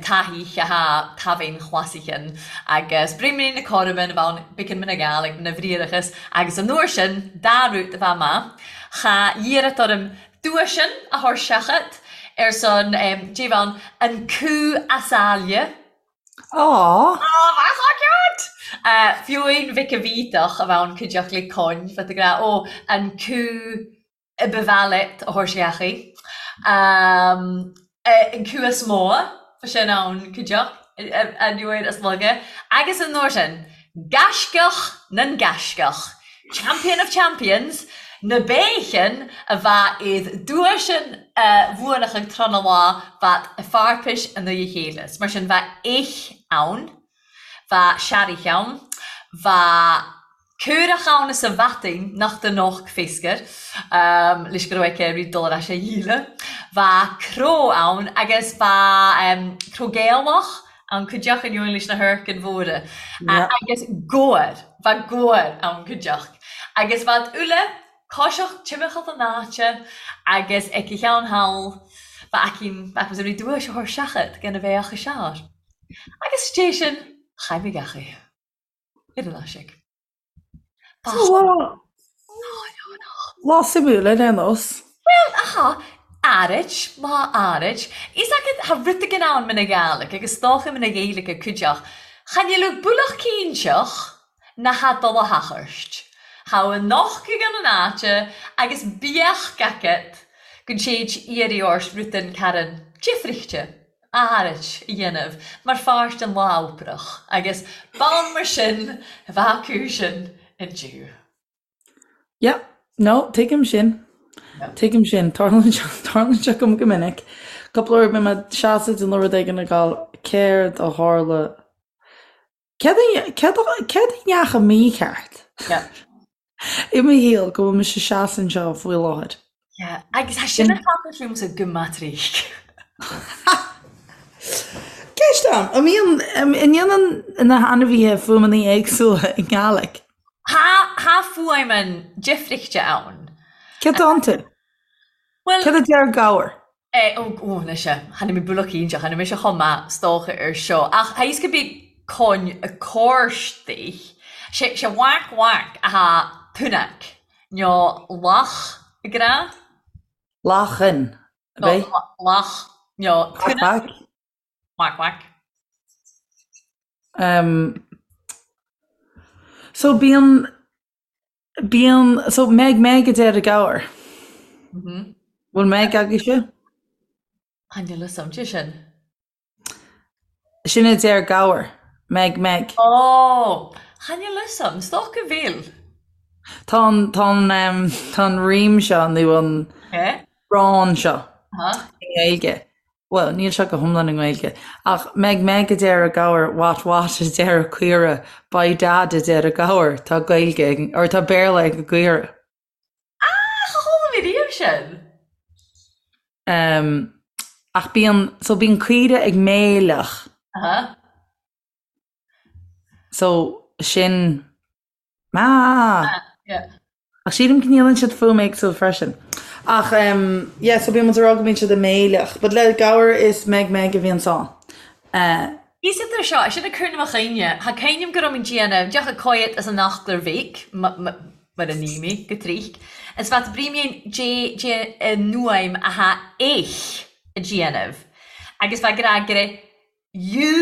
C: taithí atá taibhín chlasaichin agus bruíon na cothroime na bhonn biceann na Gàidhlig na bhriathrachas agus an uair sin dá rút a bheith maith cha iarracht orm duaisean a chur seachat ar son Dé bhonn an cú as aille.
B: Aww.
C: Aww bheadh so cute! Fiúin Mhic a Bhíteach a bheadh cuideachta le Con bheadh ag rá ó an cú a ba mhaith leat a thabhairt isteach. An cú is mó, bha sin ann cuideachd, an uair is laga, agus an uair sin, gaisceach nan gaisceach, champion of champions, na béithin a bha iad duaisean a bhuanachadh tráth na lá bhat a fearpais i ndiaidh a chéile. 'S mar sin bha eich ann, bha searraich ann, bha Caorach ann is a bhatainn nach do noch féascar, leis go raibh aici rí dul ar ais a dhíle. Bha cró ann agus bha cró Gaelach ann cuideachd in leis na hurcain mhóra. Agus gabhar, bha gabhar ann cuideachd. Agus bhad uile coiseach timcheall an áite agus aici cheann thall bha aicinn, bha aicinn rí duais a chur seachad gan a bheadh a seár. Agus dé sin, chaith mé gach é. Ar an aiseag.
B: Lá Lá suimiúil ar aon nós.
C: Bhuel, aha, áirid, lá áirid. Is agat tha rud éigin ann mna Gàidhlig agus 's dòcha mna Ghaeilge cuideachd. Chan eil thu buileach cinnteach na tha dol a thachairt. Tha an eochaidh ann an àite agus beadh agat gun téid iarraidh ort rudan carn difrichte. áirid a dhéanamh mar pháirt den lá oipreach agus b'ann mar sin a bheadh acu sin inniu.
B: Yeah, no, tuigim sin. Tuigim sin. Tarlaíonn sé, tarlaíonn sé dom go minic. Cúpla uair bíonn mé ag seasamh ag déanamh rud éigin ag gabháil céard a tharla Céard a, céard a, céard a ndeachaigh mícheart?
C: Yeah.
B: I mo shaol go bhfuil mise ag seasamh anseo faoi láthair.
C: Yeah, agus tá sin ag tarlú liomsa go maith tríd.
B: Ceist ann, an mbíonn, an ndéanann na hainmhithe fuaimeanna éagsúla i nGàidhlig?
C: Tha, tha fuaimean difrichte ann.
B: Céard atá iontu?
C: Bhuel.
B: Céard a deir gabhar?
C: Eh, ó, ó, anois eh, chan eil mi buileach cinnteach, chan eil mise chomh maith 's dòcha air seo, ach tha fhios gu bith con a còrstaich, sé, sé whack whack a tha tunnach, no lach ag rá.
B: Lachan, ab
C: No,
B: é?
C: lach, no
B: Quack
C: tunnach.
B: quack.
C: Whack whack.
B: Um, so bíonn, Bíonn, so Meg Meg a deir an gabhar. Bhfuil Meg agaibhse?
C: Chan eil fhios a'm dè sin.
B: Sin a deir gabhar. Meg Meg.
C: Ó! Chan eil fhios a'm, 's dòcha bheil.
B: Tá an, tá an, tá an rím seo nó an rán seo i nGaeilge. Bhuel, níl sé go hiomlán i nGaeilge, ach Meg Meg a deir an gabhar, What What a deir an caora, By Dad a deir an gabhar, tá Gaeilge ag, or tá Béarla ag an gcaora.
C: Ah, cha chuala mé riamh sin!
B: Um, ach bíonn, so bíonn caoire ag méileach.
C: Aha.
B: So, sin Ah!
C: Yeah.
B: Ach sílim go ndéanann siad fuaim éagsúil freisin. Ach um, yeah, so bíonn muid ag rá go mbíonn siad ag méileach. But le gabhar is Meg Meg a bhíonn ann. Uh,
C: Is idir seo, sin ag cur na mo chuimhne, tha cuimhneam gu robh mi dèanamh, deoch a coiot as an eachtar bhig, mar a ní mi, go trích, is bheat brímín dé dé an fhuaim a tha eich a dhéanamh, agus bheat grá gre U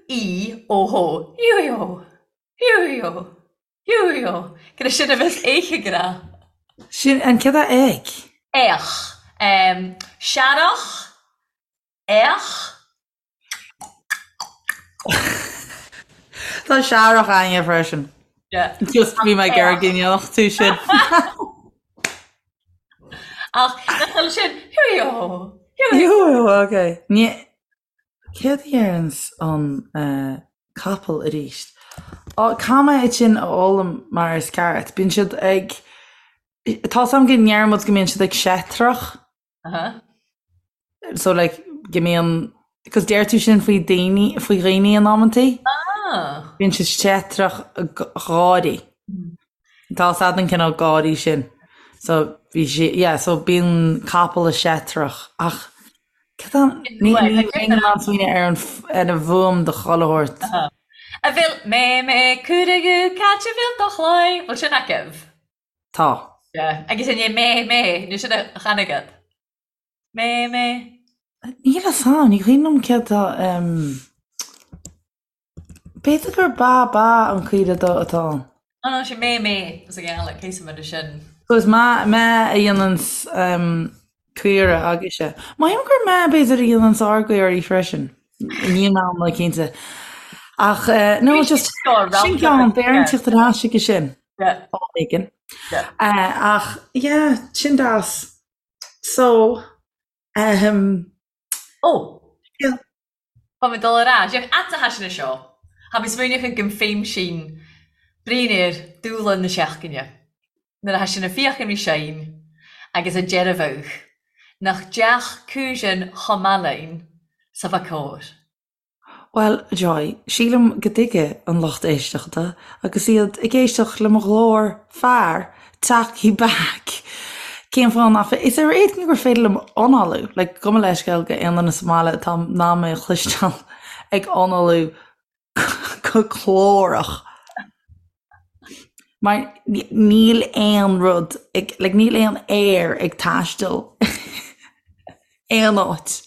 C: E O H, U E O. Hiú-hiú! Hiú-hiú! Gur sin a bheas eich ag rá.
B: Sin an céad a ag.
C: Each. Searrach. Each.
B: Tá searrach againne freisin.
C: Yeah.
B: Just bhí mé ag iarraidh go ndéanfadh tú sin.
C: Ach nach bhfuil sin hiú-hiú! Hiú-hiú!
B: Hiú-hiú, ok. Ní Céard a deireanns an capall arís? Caithfidh mé iad sin a fhoghlaim mar is ceart. Bíonn siad ag, tá 's a'm go ndeir muid go mbíonn siad ag seitreach. So like go mbíonn, cos deir tú sin faoi daoine, faoi dhaoine in amantaí. Bíonn siad seitreach gáirí. Tá 's a'd an cineál gáirí sin. So bhí sí, yeah, so bíonn capall a seitreach ach Cad é an, ní bheinn in ann smaoineamh ar an, ar an bhfuaim do chuile shórt.
C: A bhfuil mé mé cúragú cait a bhfuil do chlaí, bhfuil sin agaibh?
B: Tá.
C: Yeah. Agus an é mé mé, nó sin a chan agat? Mé mé.
B: Níl a fhios a'm, ní cuimhin liom céard tá, em. B'fhéidir gur ba ba an caoire do atá ann.
C: Oh no, sin mé mé is a gheala, cé sa mbeidh sin?
B: So is mé mé a dhéananns caoire agaibhse. Mothaím gur mé b'fhéidir a dhéananns ár gcaoirí freisin. Níl mé iomlán cinnte. Ach no just sin ceann, beidh orainn tíocht ar ais chuige sin. Am éigin. Ach yeah, sin deas. So, ahem.
C: Oh! Yeah. Tá mé dul ar ais. Ach ata thá sin seo. Tha mi smaoineachadh gun feum sinn bruidhinn air dùghlan na seachdaine. Nuair a tha sinn a' feuchainn ri Seaghan agus a deirbheadh nach deach cùisean cho math linn 's a bha còir.
B: Bhuel, a Joy, sílim go dtuigfidh an lucht éisteachta agus iad ag éisteacht le mo ghlór fear talkie back cén fáth nach féidir, is ar éigean gur féidir liom análú, like gabh mo leithscéal go aon duine sa mbaile atá in ann mé a chloisteáil ag análú go glórach. Mar níl aon rud ag, like níl aon aer ag taisteal aon áit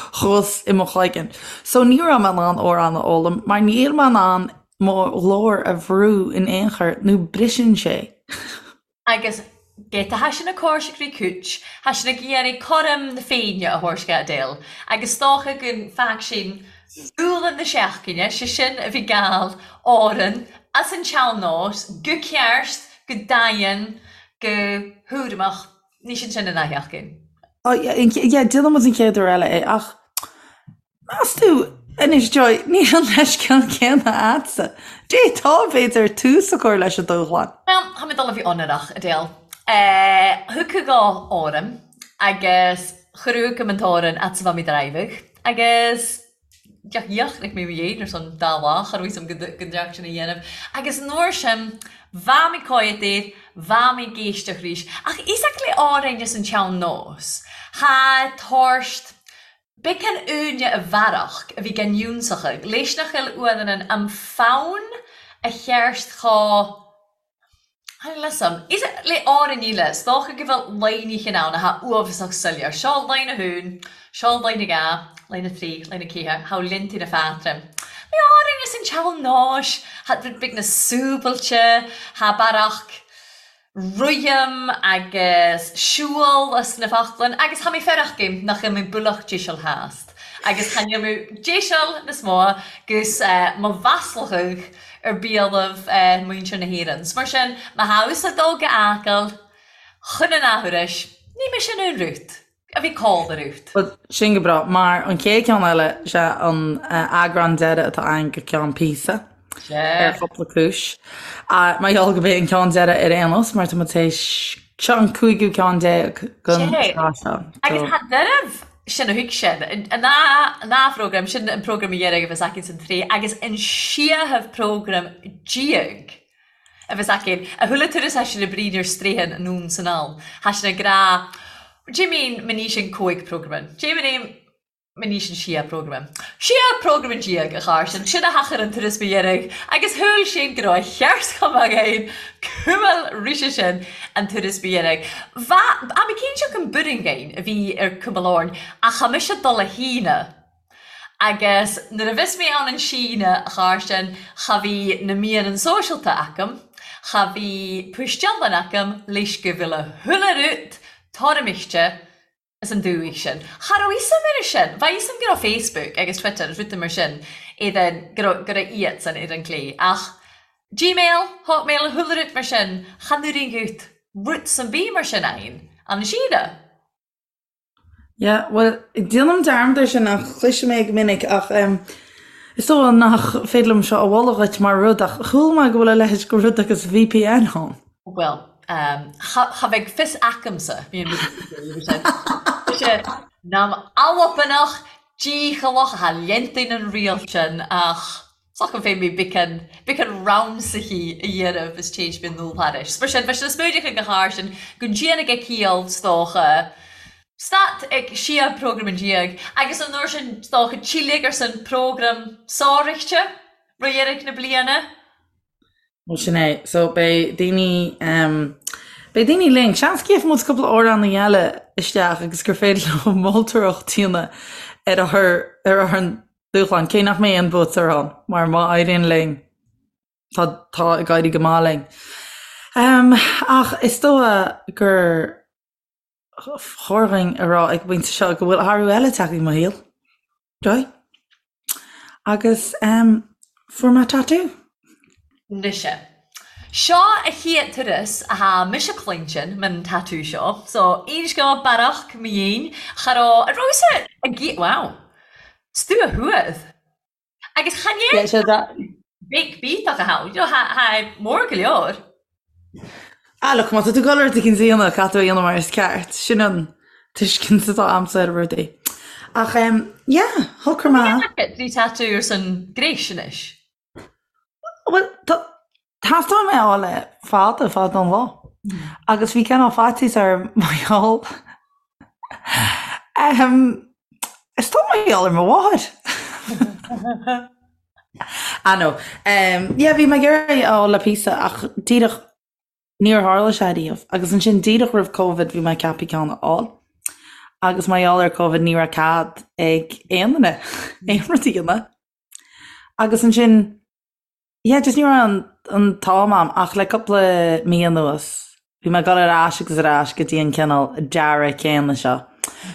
B: thuas i mo chloigeann. So ní raibh mé in ann amhrán a fhoghlaim mar níl mé in ann mo ghlór a bhrú in aon chor nó briseann sé.
C: Agus ged tha sinn a còrseag ri cùit, tha sinn ag iarraidh cothrom na Féinne a thabhairt dha Adele, agus 's dòcha gun faic sinn dùghlan na seachdaine, 'se sin a bhith gàil òrainn a's an tsean-nós, gu ceart, gu daighean, gu hùramach. Ní sin sin an athsheachtain.
B: Oh yeah, yeah, déanfaidh muid an chéad uair eile é ach meas tú anois Joy, níl an leithscéal céanna a'dsa. D'fhéadfá b'fhéidir tús a chur leis an dúshlán.
C: Bhuel, tha mi dol a bhith ionnrach, Adele. Thiocfadh dhò òram agus chuireadh agam an t-òran fhad 's a bha mi dràibhidh agus Dheoch mé mo dhéin ar son dá lá, cha raibh fhios a'm go ndearc sin a dhéanamh. Agus an uair sin, bha mi còimhead air, bha mi ag èisteachd rìs. Ach is le òrain as an tsean-nós, tha tòrst beagan aoinne a bhearach a bhí gan ionnsachaidh, leis nach eil uannan an fonn a cheart cho Tha fhios a'm. Is le òrain eile, 's dòcha gu bheil laighneachan ann a tha uabhasach soileir. Seo line a haon, seo line a dha, line a trì, line a ceathair, tha liontaí na fatra. Le òrain as an tsean-nóis, tha rud beag na súbailte, tha bearach rithim agus siúl as na foclainn agus tha mi fearach aim nach eil mi buileach deiseal theast agus chan eil mi deiseal nas mó gus mo mhaslachadh ar biallaibh muintir na hÉireann. 'S mar sin, má tha thusa ag dul go Acaill chun an athuairis, ní mise an aon rút a bhí call ar út.
B: Bhuel, sin go breá, mar an chéad cheann eile, sé an eagrán deiridh atá againn go ceann píosa, ar chúpla cúis. Mar gheall go b'é an ceann deiridh ar aon nós, mar tá muid théis, seo an cúigiú ceann déag den tsraith
C: seo. Agus tá dearbh sin a thuig sin. An dá phrógram, sin an prógram a dheireadh a bheas againn san tsraith agus an seachadh prógram déag a bheas againn. A chuala turas tha sinn a' bruidhinn air straidhn anonn 's anall. Tha sinn ag ràdh, D'you mean ma ní sin cùig prógraman? D'you mean ma ní sin siadh prógraman? Siadh prógraman déag, a Chàirdean, sin a thachair an turas ba dheireadh agus shúil sinn go raibh a cheart chomh maith againn cumail rise sin an turas ba dheireadh. Bha, tha mi cinnteach an buireann a bhí ar cumail Árainn ach tha mise dul a Shíne agus nuair a bhios mé ann an Síne, a Chàirdean, cha bhí na meadhanan sóisealta agam, cha bhí puistealann agam leis go bhfuil a chuile rud toirmiscte as an dúthaigh sin. Cha raibh fhios a'm air sin. Bha fhios a'm go raibh Facebook agus Twitter agus rudaí mar sin iad go raibh go raibh iadsan ar an gclé ach Gmail, Hotmail, chuile rud mar sin, chan oireann dhuit rud san bith mar sin ann an Síne.
B: Yeah, bhuel, déanaim dearmad air sin ach cloisim é go minic ach em. Is dóigh nach féidir liom seo a mholadh dhuit mar rud ach chuala mé go bhfuil a leithéid de rud agus VPN ann.
C: Bhuel, cha bheidh fios acamsa, bhí an rud nam albanach dícheallach atá leantainn an riail sin ach s'agam féin mé beacán beacán ramsaithe a dhéanamh is téid mé nul thairis. Mar sin, bheadh sé na smúideacha go thar sin go ndéana go ciall 's dócha. Stát ag siar prógram an diaidh agus an uair sin 's dócha tílig ar son prógram sároichte roimh dheireadh na bliana.
B: Bhuel sin é. So beidh daoine ehm beidh daoine linn. Seans go gheobhaidh muid cúpla amhránaí eile isteach agus gur féidir leo moltóireacht a dhéanamh ar ár ar ár ndúshlán, cé nach mbeidh aon bhuaiteoir ann mar má éiríonn linn tá tá ag éirí go maith linn. Ehm ach is dóigh gur chóir dhúinn a rá ag an bpointe seo go bhfuil athrú eile tagtha i mo shaol. Joy. Agus em fuair mé tatú.
C: Mise. Seo a chéad turas athá mise cluintin man tatú seo. So, aon scéal bearach mo dhéin, cha raibh, a raibh-sa ag, wow. 's tú a thuath. Agus chan
B: Yeah, sé that.
C: big bíteach a thá, you know, thá, thá mór go leor.
B: Ah, look, má tá tú ag dul rud éicint a dhéanamh, caithfidh tú é a dhéanamh mar is ceart. Sin an tuiscint atá a'msa ar rudaí. Ach, em, yeah, shocraigh mé.
C: Bhí tatú ar son gréis anois.
B: Bhuel, tá, theastaigh uaim é a fháil le fada, fada an lá. Agus bhí cineál faitíos orm mar gheall, em, is dóigh mar gheall ar mo mháthair. Ah no. Em, yeah, bhí mé ag iarraidh é a fháil le píosa ach díreach níor tharla sé riamh. Agus ansin díreach roimh Covid bhí mé ag ceapadh ceann a fháil. Agus mar gheall ar Covid ní raibh cead ag aon duine aon rud a dhéanamh. Agus ansin, yeah, just ní raibh an, an t-am a'm ach le cúpla mí anuas bhí mé ag dul ar ais agus ar ais go dtí an cineál dearadh céanna seo.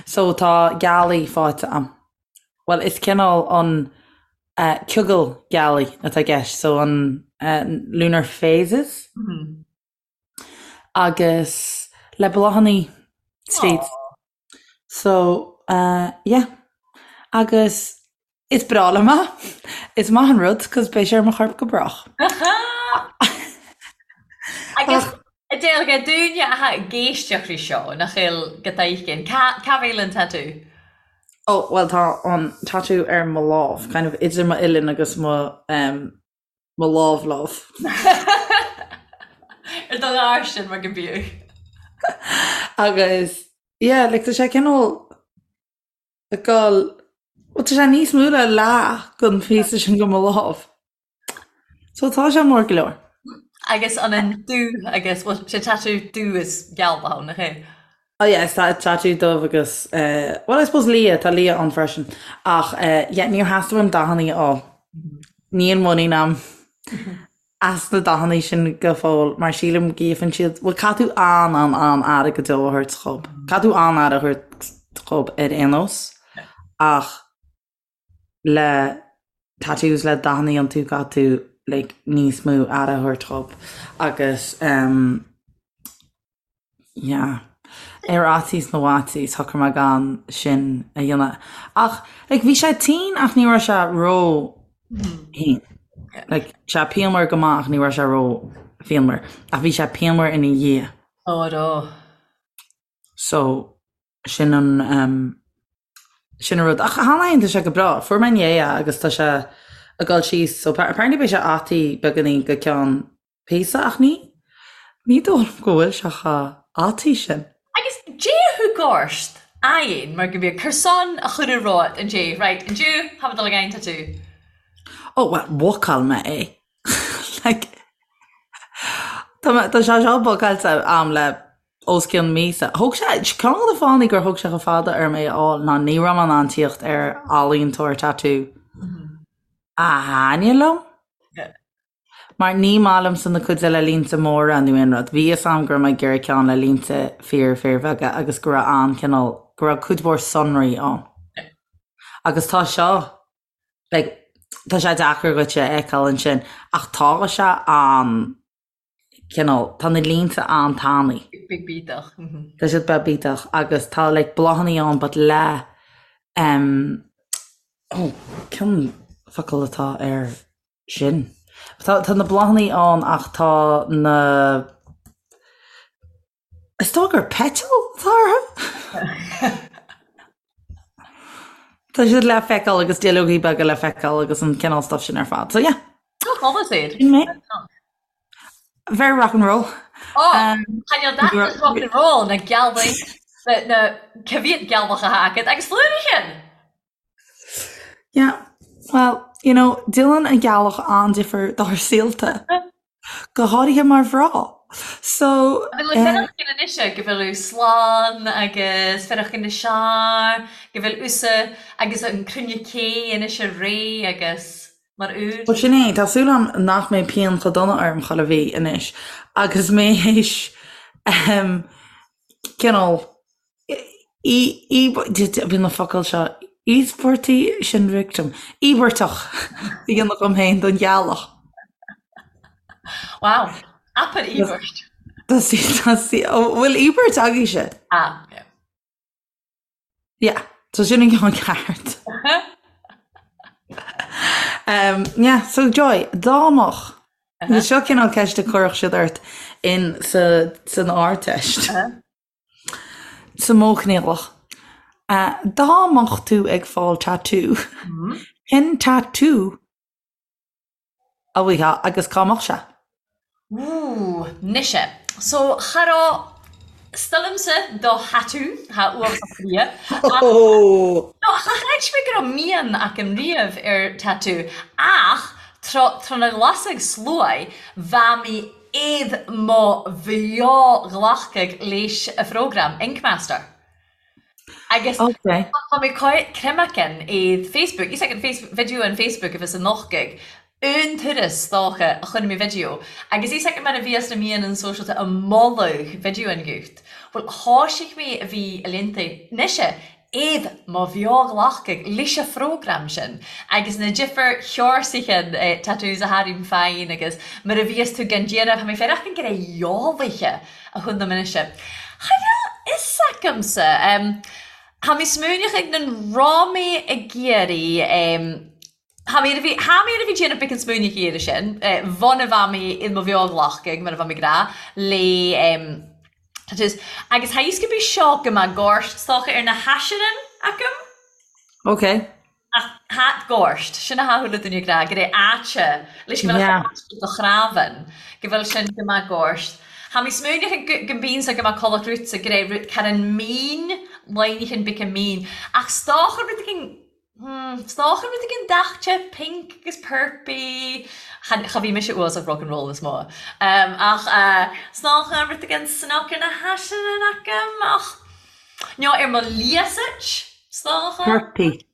B: So tá gealaí faighte a'm. Bhuel, is cineál an eh, ciogal gealaí atá i gceist, so an eh, lunar phases agus le bláthannaí tríd. So, eh, yeah. Agus is breá liom é. Is maith an rud, 'cause beidh sé ar mo chorp go brách.
C: Agus a deilge dúinne atá ag éisteacht ri seo, nach eil go dtaigheann, cá cá bhfuil an tatú?
B: Oh, bhuel tá an tatú ar mo lámh, kind of idir m'uillinn agus mo, em, mo lámh lámh.
C: Ar do ghairsin mar go bíodh.
B: Agus, yeah, like tá sé cineál ag dul, bhuel tá sé níos mó le leath den phíosa sin de mo lámh. So tá sé mór go leor.
C: Agus an an dubh agus, bhuel sé tatú dubh is geal ann, nach é?
B: Oh yeah, is tatú dubh agus eh, well I suppose liath, tá liath ann freisin. Ach eh, yeah, níor theastaigh uaim dathannaí a fháil. Níl muinín a'm as na dathannaí sin go fóill mar sílim go gcaithfeann siad, bhuel caithfidh tú an an an-aire go deo a thabhairt dhób. Caithfidh tú an-aire a thabhairt dhób ar aon nós ach le tattoos le dathannaí iontu caithfidh tú like níos mó aire a thabhairt dhób agus em yeah ar fhaitíos na bhfaitíos shocraigh mé gan sin a dhéanamh ach like bhí sé tinn ach ní raibh sé ró thinn like sé pianmhar go maith ach ní raibh sé ró phianmhar ach bhí sé pianmhar ina dhiaidh.
C: Ó ró.
B: So sin an em Sin an rud. Ach cheana féin tá sé go breá. Fuair mé inné é agus tá sé ag dul síos so apparently beidh sé ataí beagáinín go ceann píosa ach ní ní dóigh liom go bhfuil sé chomh ataí sin.
C: Agus dé thug ort aghaidh mar go mbíodh cur san a chur i rot an dé right inniu tá mé dul ag aghaidh tatú.
B: Oh well bhookáil mé é. Like tá mé tá sé seo bookáilte a'm le os cionn míosa. Thóg sé, ceann de na fáthanna gur thóg sé chomh fada orm é a fháil ná ní raibh mé in ann tíocht ar ealaíontóir tatú a thaitnigh liom. Mar ní maith liomsa na cuid le línte móra nó aon rud. Bhí fhios a'm go raibh mé ag iarraidh ceann le línte fíor fíorbheaga agus go raibh an-chineál, go raibh cuid mhór sonraí ann. Agus tá seo, like, tá sé deacair dhuit é a fheiceáil ansin ach tá sé an cineál, tá na línte an-tanaí.
C: Beag bídeach.
B: Tá siad beag bídeach agus tá like bláthannaí ann but le em oh ceann. focal atá air sin. Tá tá na bláthanna ann ach tá na Is dóigh gur petal atá orthu? Tá siad le feiceáil agus duilleogaí beaga le feiceáil agus an cineál stuff sin ar fad. So yeah.
C: Tá chumas iad.
B: Sin mé. Very rock and roll.
C: Oh, Tá that is rock and roll na gealaigh na cibhiad gealach a agat agus flúirichin.
B: Yeah, well, you know, déanann an ghealach an-difear dár saolta, go háirithe mar mhná. So,
C: An bhfuil fearachan anois go bhfuil slán agus fearachan na sear, go bhfuil usa agus an cruinne cé anois réidh agus mar úr.
B: Bhuel, sin é, tá súil agam nach mbeidh pian chomh dona orm chuile mhí anois agus mé théis cineál Bíonn na focail seo, íospartaigh sin victim, íobartach a dhéanamh dhom féin don ghealach.
C: Wow, abair íobairt.
B: Tá sí, tá sí, bhfuil íobairt agaibhse?
C: Ah, yeah.
B: Yeah, so sin an ceann ceart. Um, yeah, so Joy, dá mbeadh, seo cineál ceist a chuirfeadh siad ort in sa, san Ardteist. Sa modh coinníollach. Dá mbeadh tú ag fáil tatú, cén tatú a bhfaighfeá agus cá mbeadh sé?
C: Ooh, mise. So, cha raibh stilimse do thatú, tha uafásach bria. Ach, no, cha chreid mé go raibh mian agam riamh ar tatú, ach tro, tro na ghlasag sluaigh, bha mi Iad mo bheo-ghlacadh leis a phrógram, Ink Master. Agus tá mé creimacin iad Facebook, is ag an video an Facebook a bhí sa nochtadh, un turas dócha a choinnigh mé video, agus is ag mar a bhíos na míonna sóisialta a moladh video an ghiúcht. Bhuel, thoisigh mé a bhí a liontaí, anois Iad mo bheo-ghlacadh leis a phrógram sin agus na difir sheorsaithe tattoos a tharraing féin agus mar a bhíos tú gan déanamh, tá mé féin ach an gné eolaithe a chun na minice. Cha bhfuil fhios agamsa. Tá mé smaoineach ag nan raibh mé ag iarraidh Tá mé a bhí tá mé a bhí déanamh bic an smaoineach iarraidh sin, bhun a bheith mé i mo bheo-ghlacadh mar a bheith mé ag rá le tattoos. Agus tá fhios go bí seo go mbeadh gort stoca ar na haisearann agam.
B: Ok.
C: Ach hat gort, sin a thathúla duine ag rá go raibh áite leis go bhfuil yeah. do chrábhann, go bhfuil sin go mbeadh gort. Tá mé smaoineach go mbíonn sa go mbeadh codladh rút sa go raibh rút car an mín, lainichin bic an mín. Ach stoca rud éigin 'S dócha rud éigin daite, pink agus purpy, cha bhí mise uasach rock and roll is mó. Ach 's dócha rud éigin snoc ar na haiseanna agam ach nó ar mo liasait, 's dócha.
B: Purpy.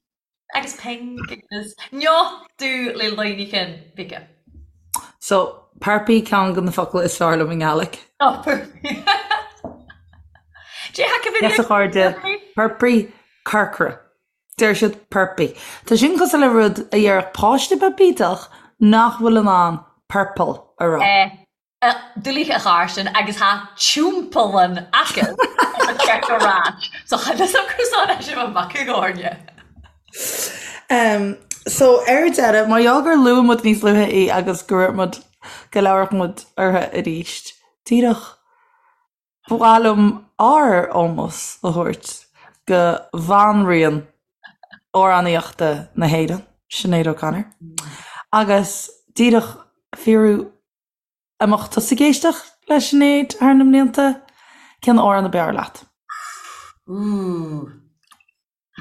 C: Agus pink agus nó dubh le loinneachán bige.
B: So, purpy ceann de na focail is fearr liom i nGaelic.
C: Oh, purpy. Dé haca
B: Yes, a chairde, purpy, corcra. Deir siad purpy. Tá sin cosúil le rud a déarfadh páiste beag bídeach nach bhfuil in ann purple a rá.
C: Doiligh a chársin agus tha tiúmpallan aca a cheart a ráit so cha fhios a'm cur san é sin mo mhac i gcomhairle.
B: So ar deireadh, mar gheall gur luaigh muid níos luaithe í agus go raibh muid, go labharfadh muid uirthi arís, díreach Ba mhaith liom ár ómós a thabhairt go bhanríon amhránaíochta na hÉireann, Sinéad O'Connor, agus díreach fiafraí an mbeadh tusa ag éisteacht le Sinéad thar na mblianta, cén amhrán ab fhearr leat?
C: Ooh.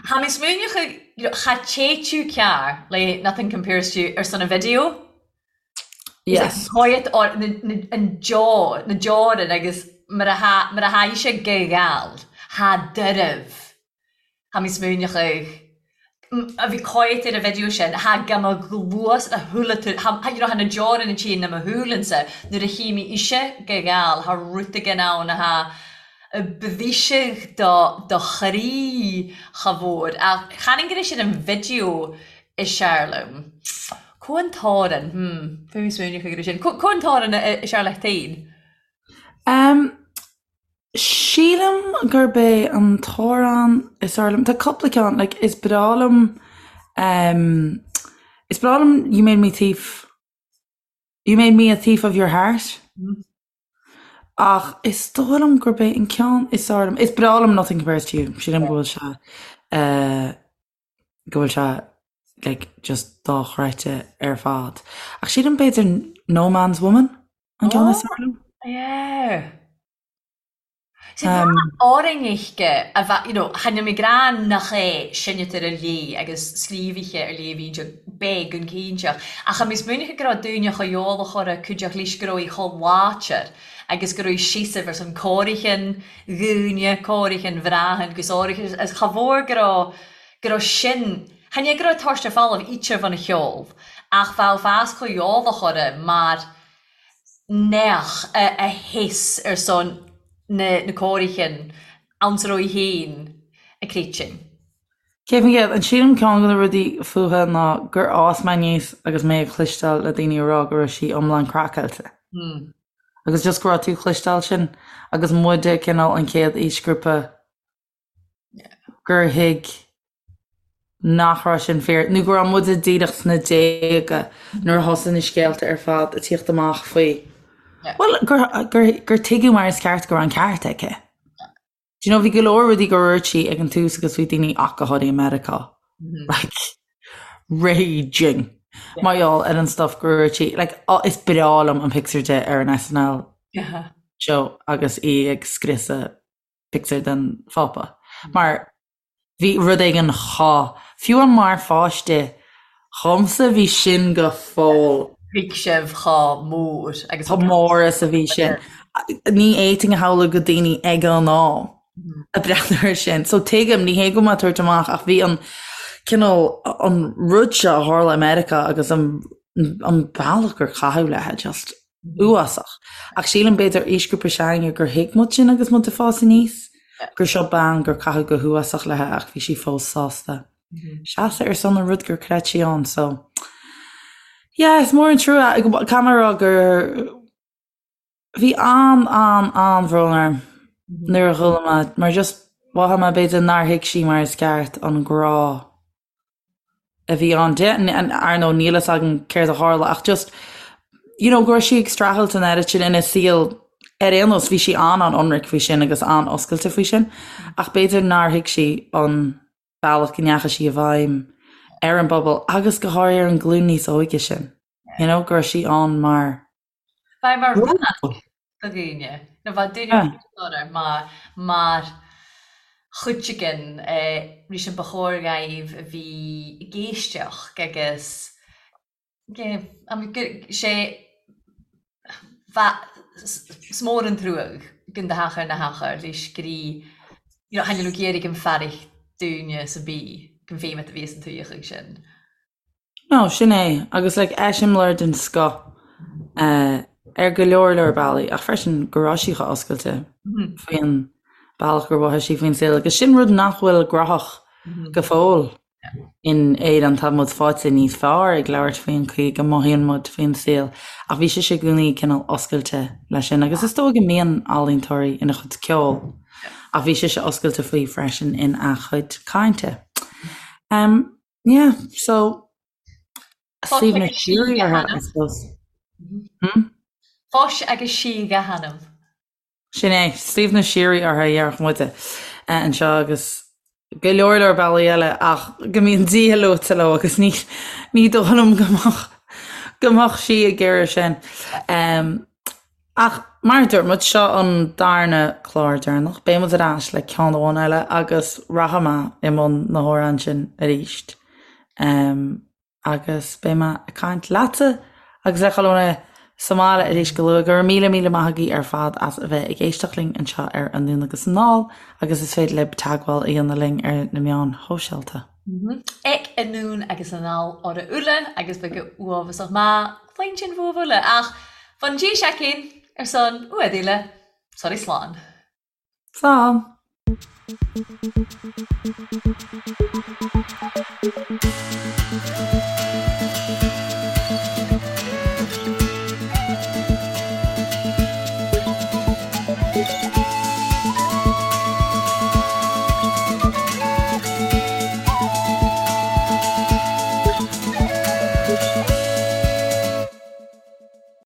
C: Tha mi smaoineachadh you know cha téitiú cearr le Nothing Compares to You ar son an video.
B: Yes.
C: Quiet or na na an deor na deorann agus mar a tha mar a tha ise ag gabháil tha doirbh. Tha mi smaoineachadh a bhí quiet ar an video sin tha go mo ghluas a shúile tú tha you know tha na deorann an tí na mo shúileann-sa nuair a chí mi ise ag gabháil tha rud éigin ann a tha Bhíseadh do do chroí cha mhór ach chan go raibh sin an video is fearr liom. Có an t-amhrán, hmm, bhí mé smaoineach go raibh sin. Có an t-amhrán is fearr leat féin?
B: Em, sílim gurb é an t-amhrán is fearr liom, tá cúpla ceann, like is breá liom, em. Is breá liom You Made Me Thief, You Made Me a Thief of Your Heart. Ach is dóigh liom gurb é an ceann is fearr liom, is breá liom Nothing Compares to You, sílim go bhfuil sé eh, go bhfuil sé like just dochreidte ar fad. Ach sílim b'fhéidir No Man's Woman an ceann is fearr liom.
C: Yeah. Árainn-uisce a bheith, you know, chan eil mi ag ràdh nach e seinntear ar léith agus scríobhaithe ar léith a bhíonn sé beag an cinnteach, ach tha mi smaoineachadh go robh daoine cho eòlach orra cuideachd leis go robh í cho láidir agus go robh í seasamh ar son còmhaireachinn dhaoine, còmhaireachinn bhreathan gus áirithe is cha mhór go robh, go robh sin, chan e go robh toirt ar folamh ítear bhun a cheol ach bheadh fás cho eòlach orra mar neach a sheas ar son na còmhaireachinn anns a robh í fhèin ag créitinn.
B: 100%. An sílim ceann de na rudaí fúithi ná gur fhás mé aníos agus mé ag cloisteáil le daoine ag rá go raibh sí iomlán craiceáilte. Agus just go raibh tú ag cloisteáil sin agus muide cineál an chéad aoisghrúpa gur thuig nach raibh sin fíor, nó go raibh muide díreach sna déaga nuair a thosaigh na scéalta ar fad ag tíocht amach faoi, bhuel, gur, gur, gur tuigeadh mar is ceart go raibh an ceart aici. Do you know, bhí go leor rudaí gur dhúirt sí ag an tús agus bhí daoine ach go háirithe i Meiriceá, like, raging mar gheall ar an stuff gur dhúirt sí. Like, is breá liom an pictiúr di ar an SNL show agus í ag scriosadh pictiúr den Phápa. Mar bhí rud éigin chomh, fiú amháin mar pháiste dhomsa bhí sin go fóill.
C: Thuig sibh chomh mór
B: agus. Chomh mór is a bhí sin. Ní fhéadfainn a shamhlú go daoine ag an am ag breathnú air sin. So tuigim, ní hé go bhfuil mé ag tabhairt amach ach bhí an cineál, an rud seo a tharla i Meiriceá agus an an bealach gur caitheadh léi just uafásach. Ach sílim b'fhéidir aoisghrúpa s'againne gur thuig muid sin agus muid ag fás aníos, gur seo bean gur caitheadh go huafásach léi ach bhí sí fós sásta seasamh ar son an rud gur chreid sí ann. So yeah, is mór an trua. Caithfidh mé a rá gur bhí an an an-bhrón orm nuair a chuala mé mar just mhothaigh mé b'fhéidir nár thuig sí mar is ceart an grá a bhí ann di. Ar ndóigh níl fhios againn céard a tharla ach just you know go raibh sí ag streachailt an oiread sin ina saol ar aon nós bhí sí an-an-ionraic faoi sin agus an-oscailte faoi sin ach b'fhéidir nár thuig sí an bealach go ndeachaigh sí i bhfeidhm ar an bpobal agus go háirithe ar an ghlúin níos óige sin you know go raibh sí ann mar
C: Bheith mar radharc do dhaoine, nó bheadh duine orthu mar mar chuid den rith sin ba chóir dhaoibh a bhí ag éisteacht agus sé bheadh 's mór an truag gon do theach ar na hachar leis grí you know thaitnigh leo ag iarraidh an fearraich dúinne sa bí gon bhféimeat a bhí san tuigheadh sin.
B: No, sin é, agus like eiseamláir den scoth ar go leor leor bealaí, ach freisin go raibh sí chomh oscailte faoin bealach gur mhothaigh sí faoin saol, agus sin rud nach bhfuil gnóthach go fóill in Éirinn, tá muid faighte níos fearr ag labhairt faoin chaoi go mothaíonn muid faoin saol, ach bhí sise i gcónaí cineál oscailte leis sin, agus is dóigh go mbíonn ealaíontóirí ina chuid ceoil, ach bhí sise oscailte faoi freisin ina cuid cainte. Yeah, so suaimhneas síoraí uirthi, I suppose.
C: Hmm? Fáis agus sí a hanam.
B: Sin é, suaimhneas síoraí uirthi, a déarfadh muide anseo agus go leor leor bealaí eile ach go mbíonn Dia luaite leo agus ní ní dóigh liom go mbeadh go mbeadh sí ag iarraidh sin. Ach mar a dúirt muid, seo an darna clár deireanach. Beidh muid ar ais le ceann amháin eile agus rachaidh mé i mbun na hamhráin sin arís. Agus beidh mé ag caint leatsa agus le chuile dhuine sa mbaile arís go luath. Go raibh míle míle maith agaibh ar fad as a bheith ag éisteacht linn anseo ar Anonn agus Anall agus is féidir libh teagmháil a dhéanamh linn ar na meáin shóisialta.
C: Ag Anonn agus Anall orra uile agus beidh go uafásach maith cluinstin bhuaibh uile ach fan dtí seicín ar son uaidh uile sorry slán.
B: Slán.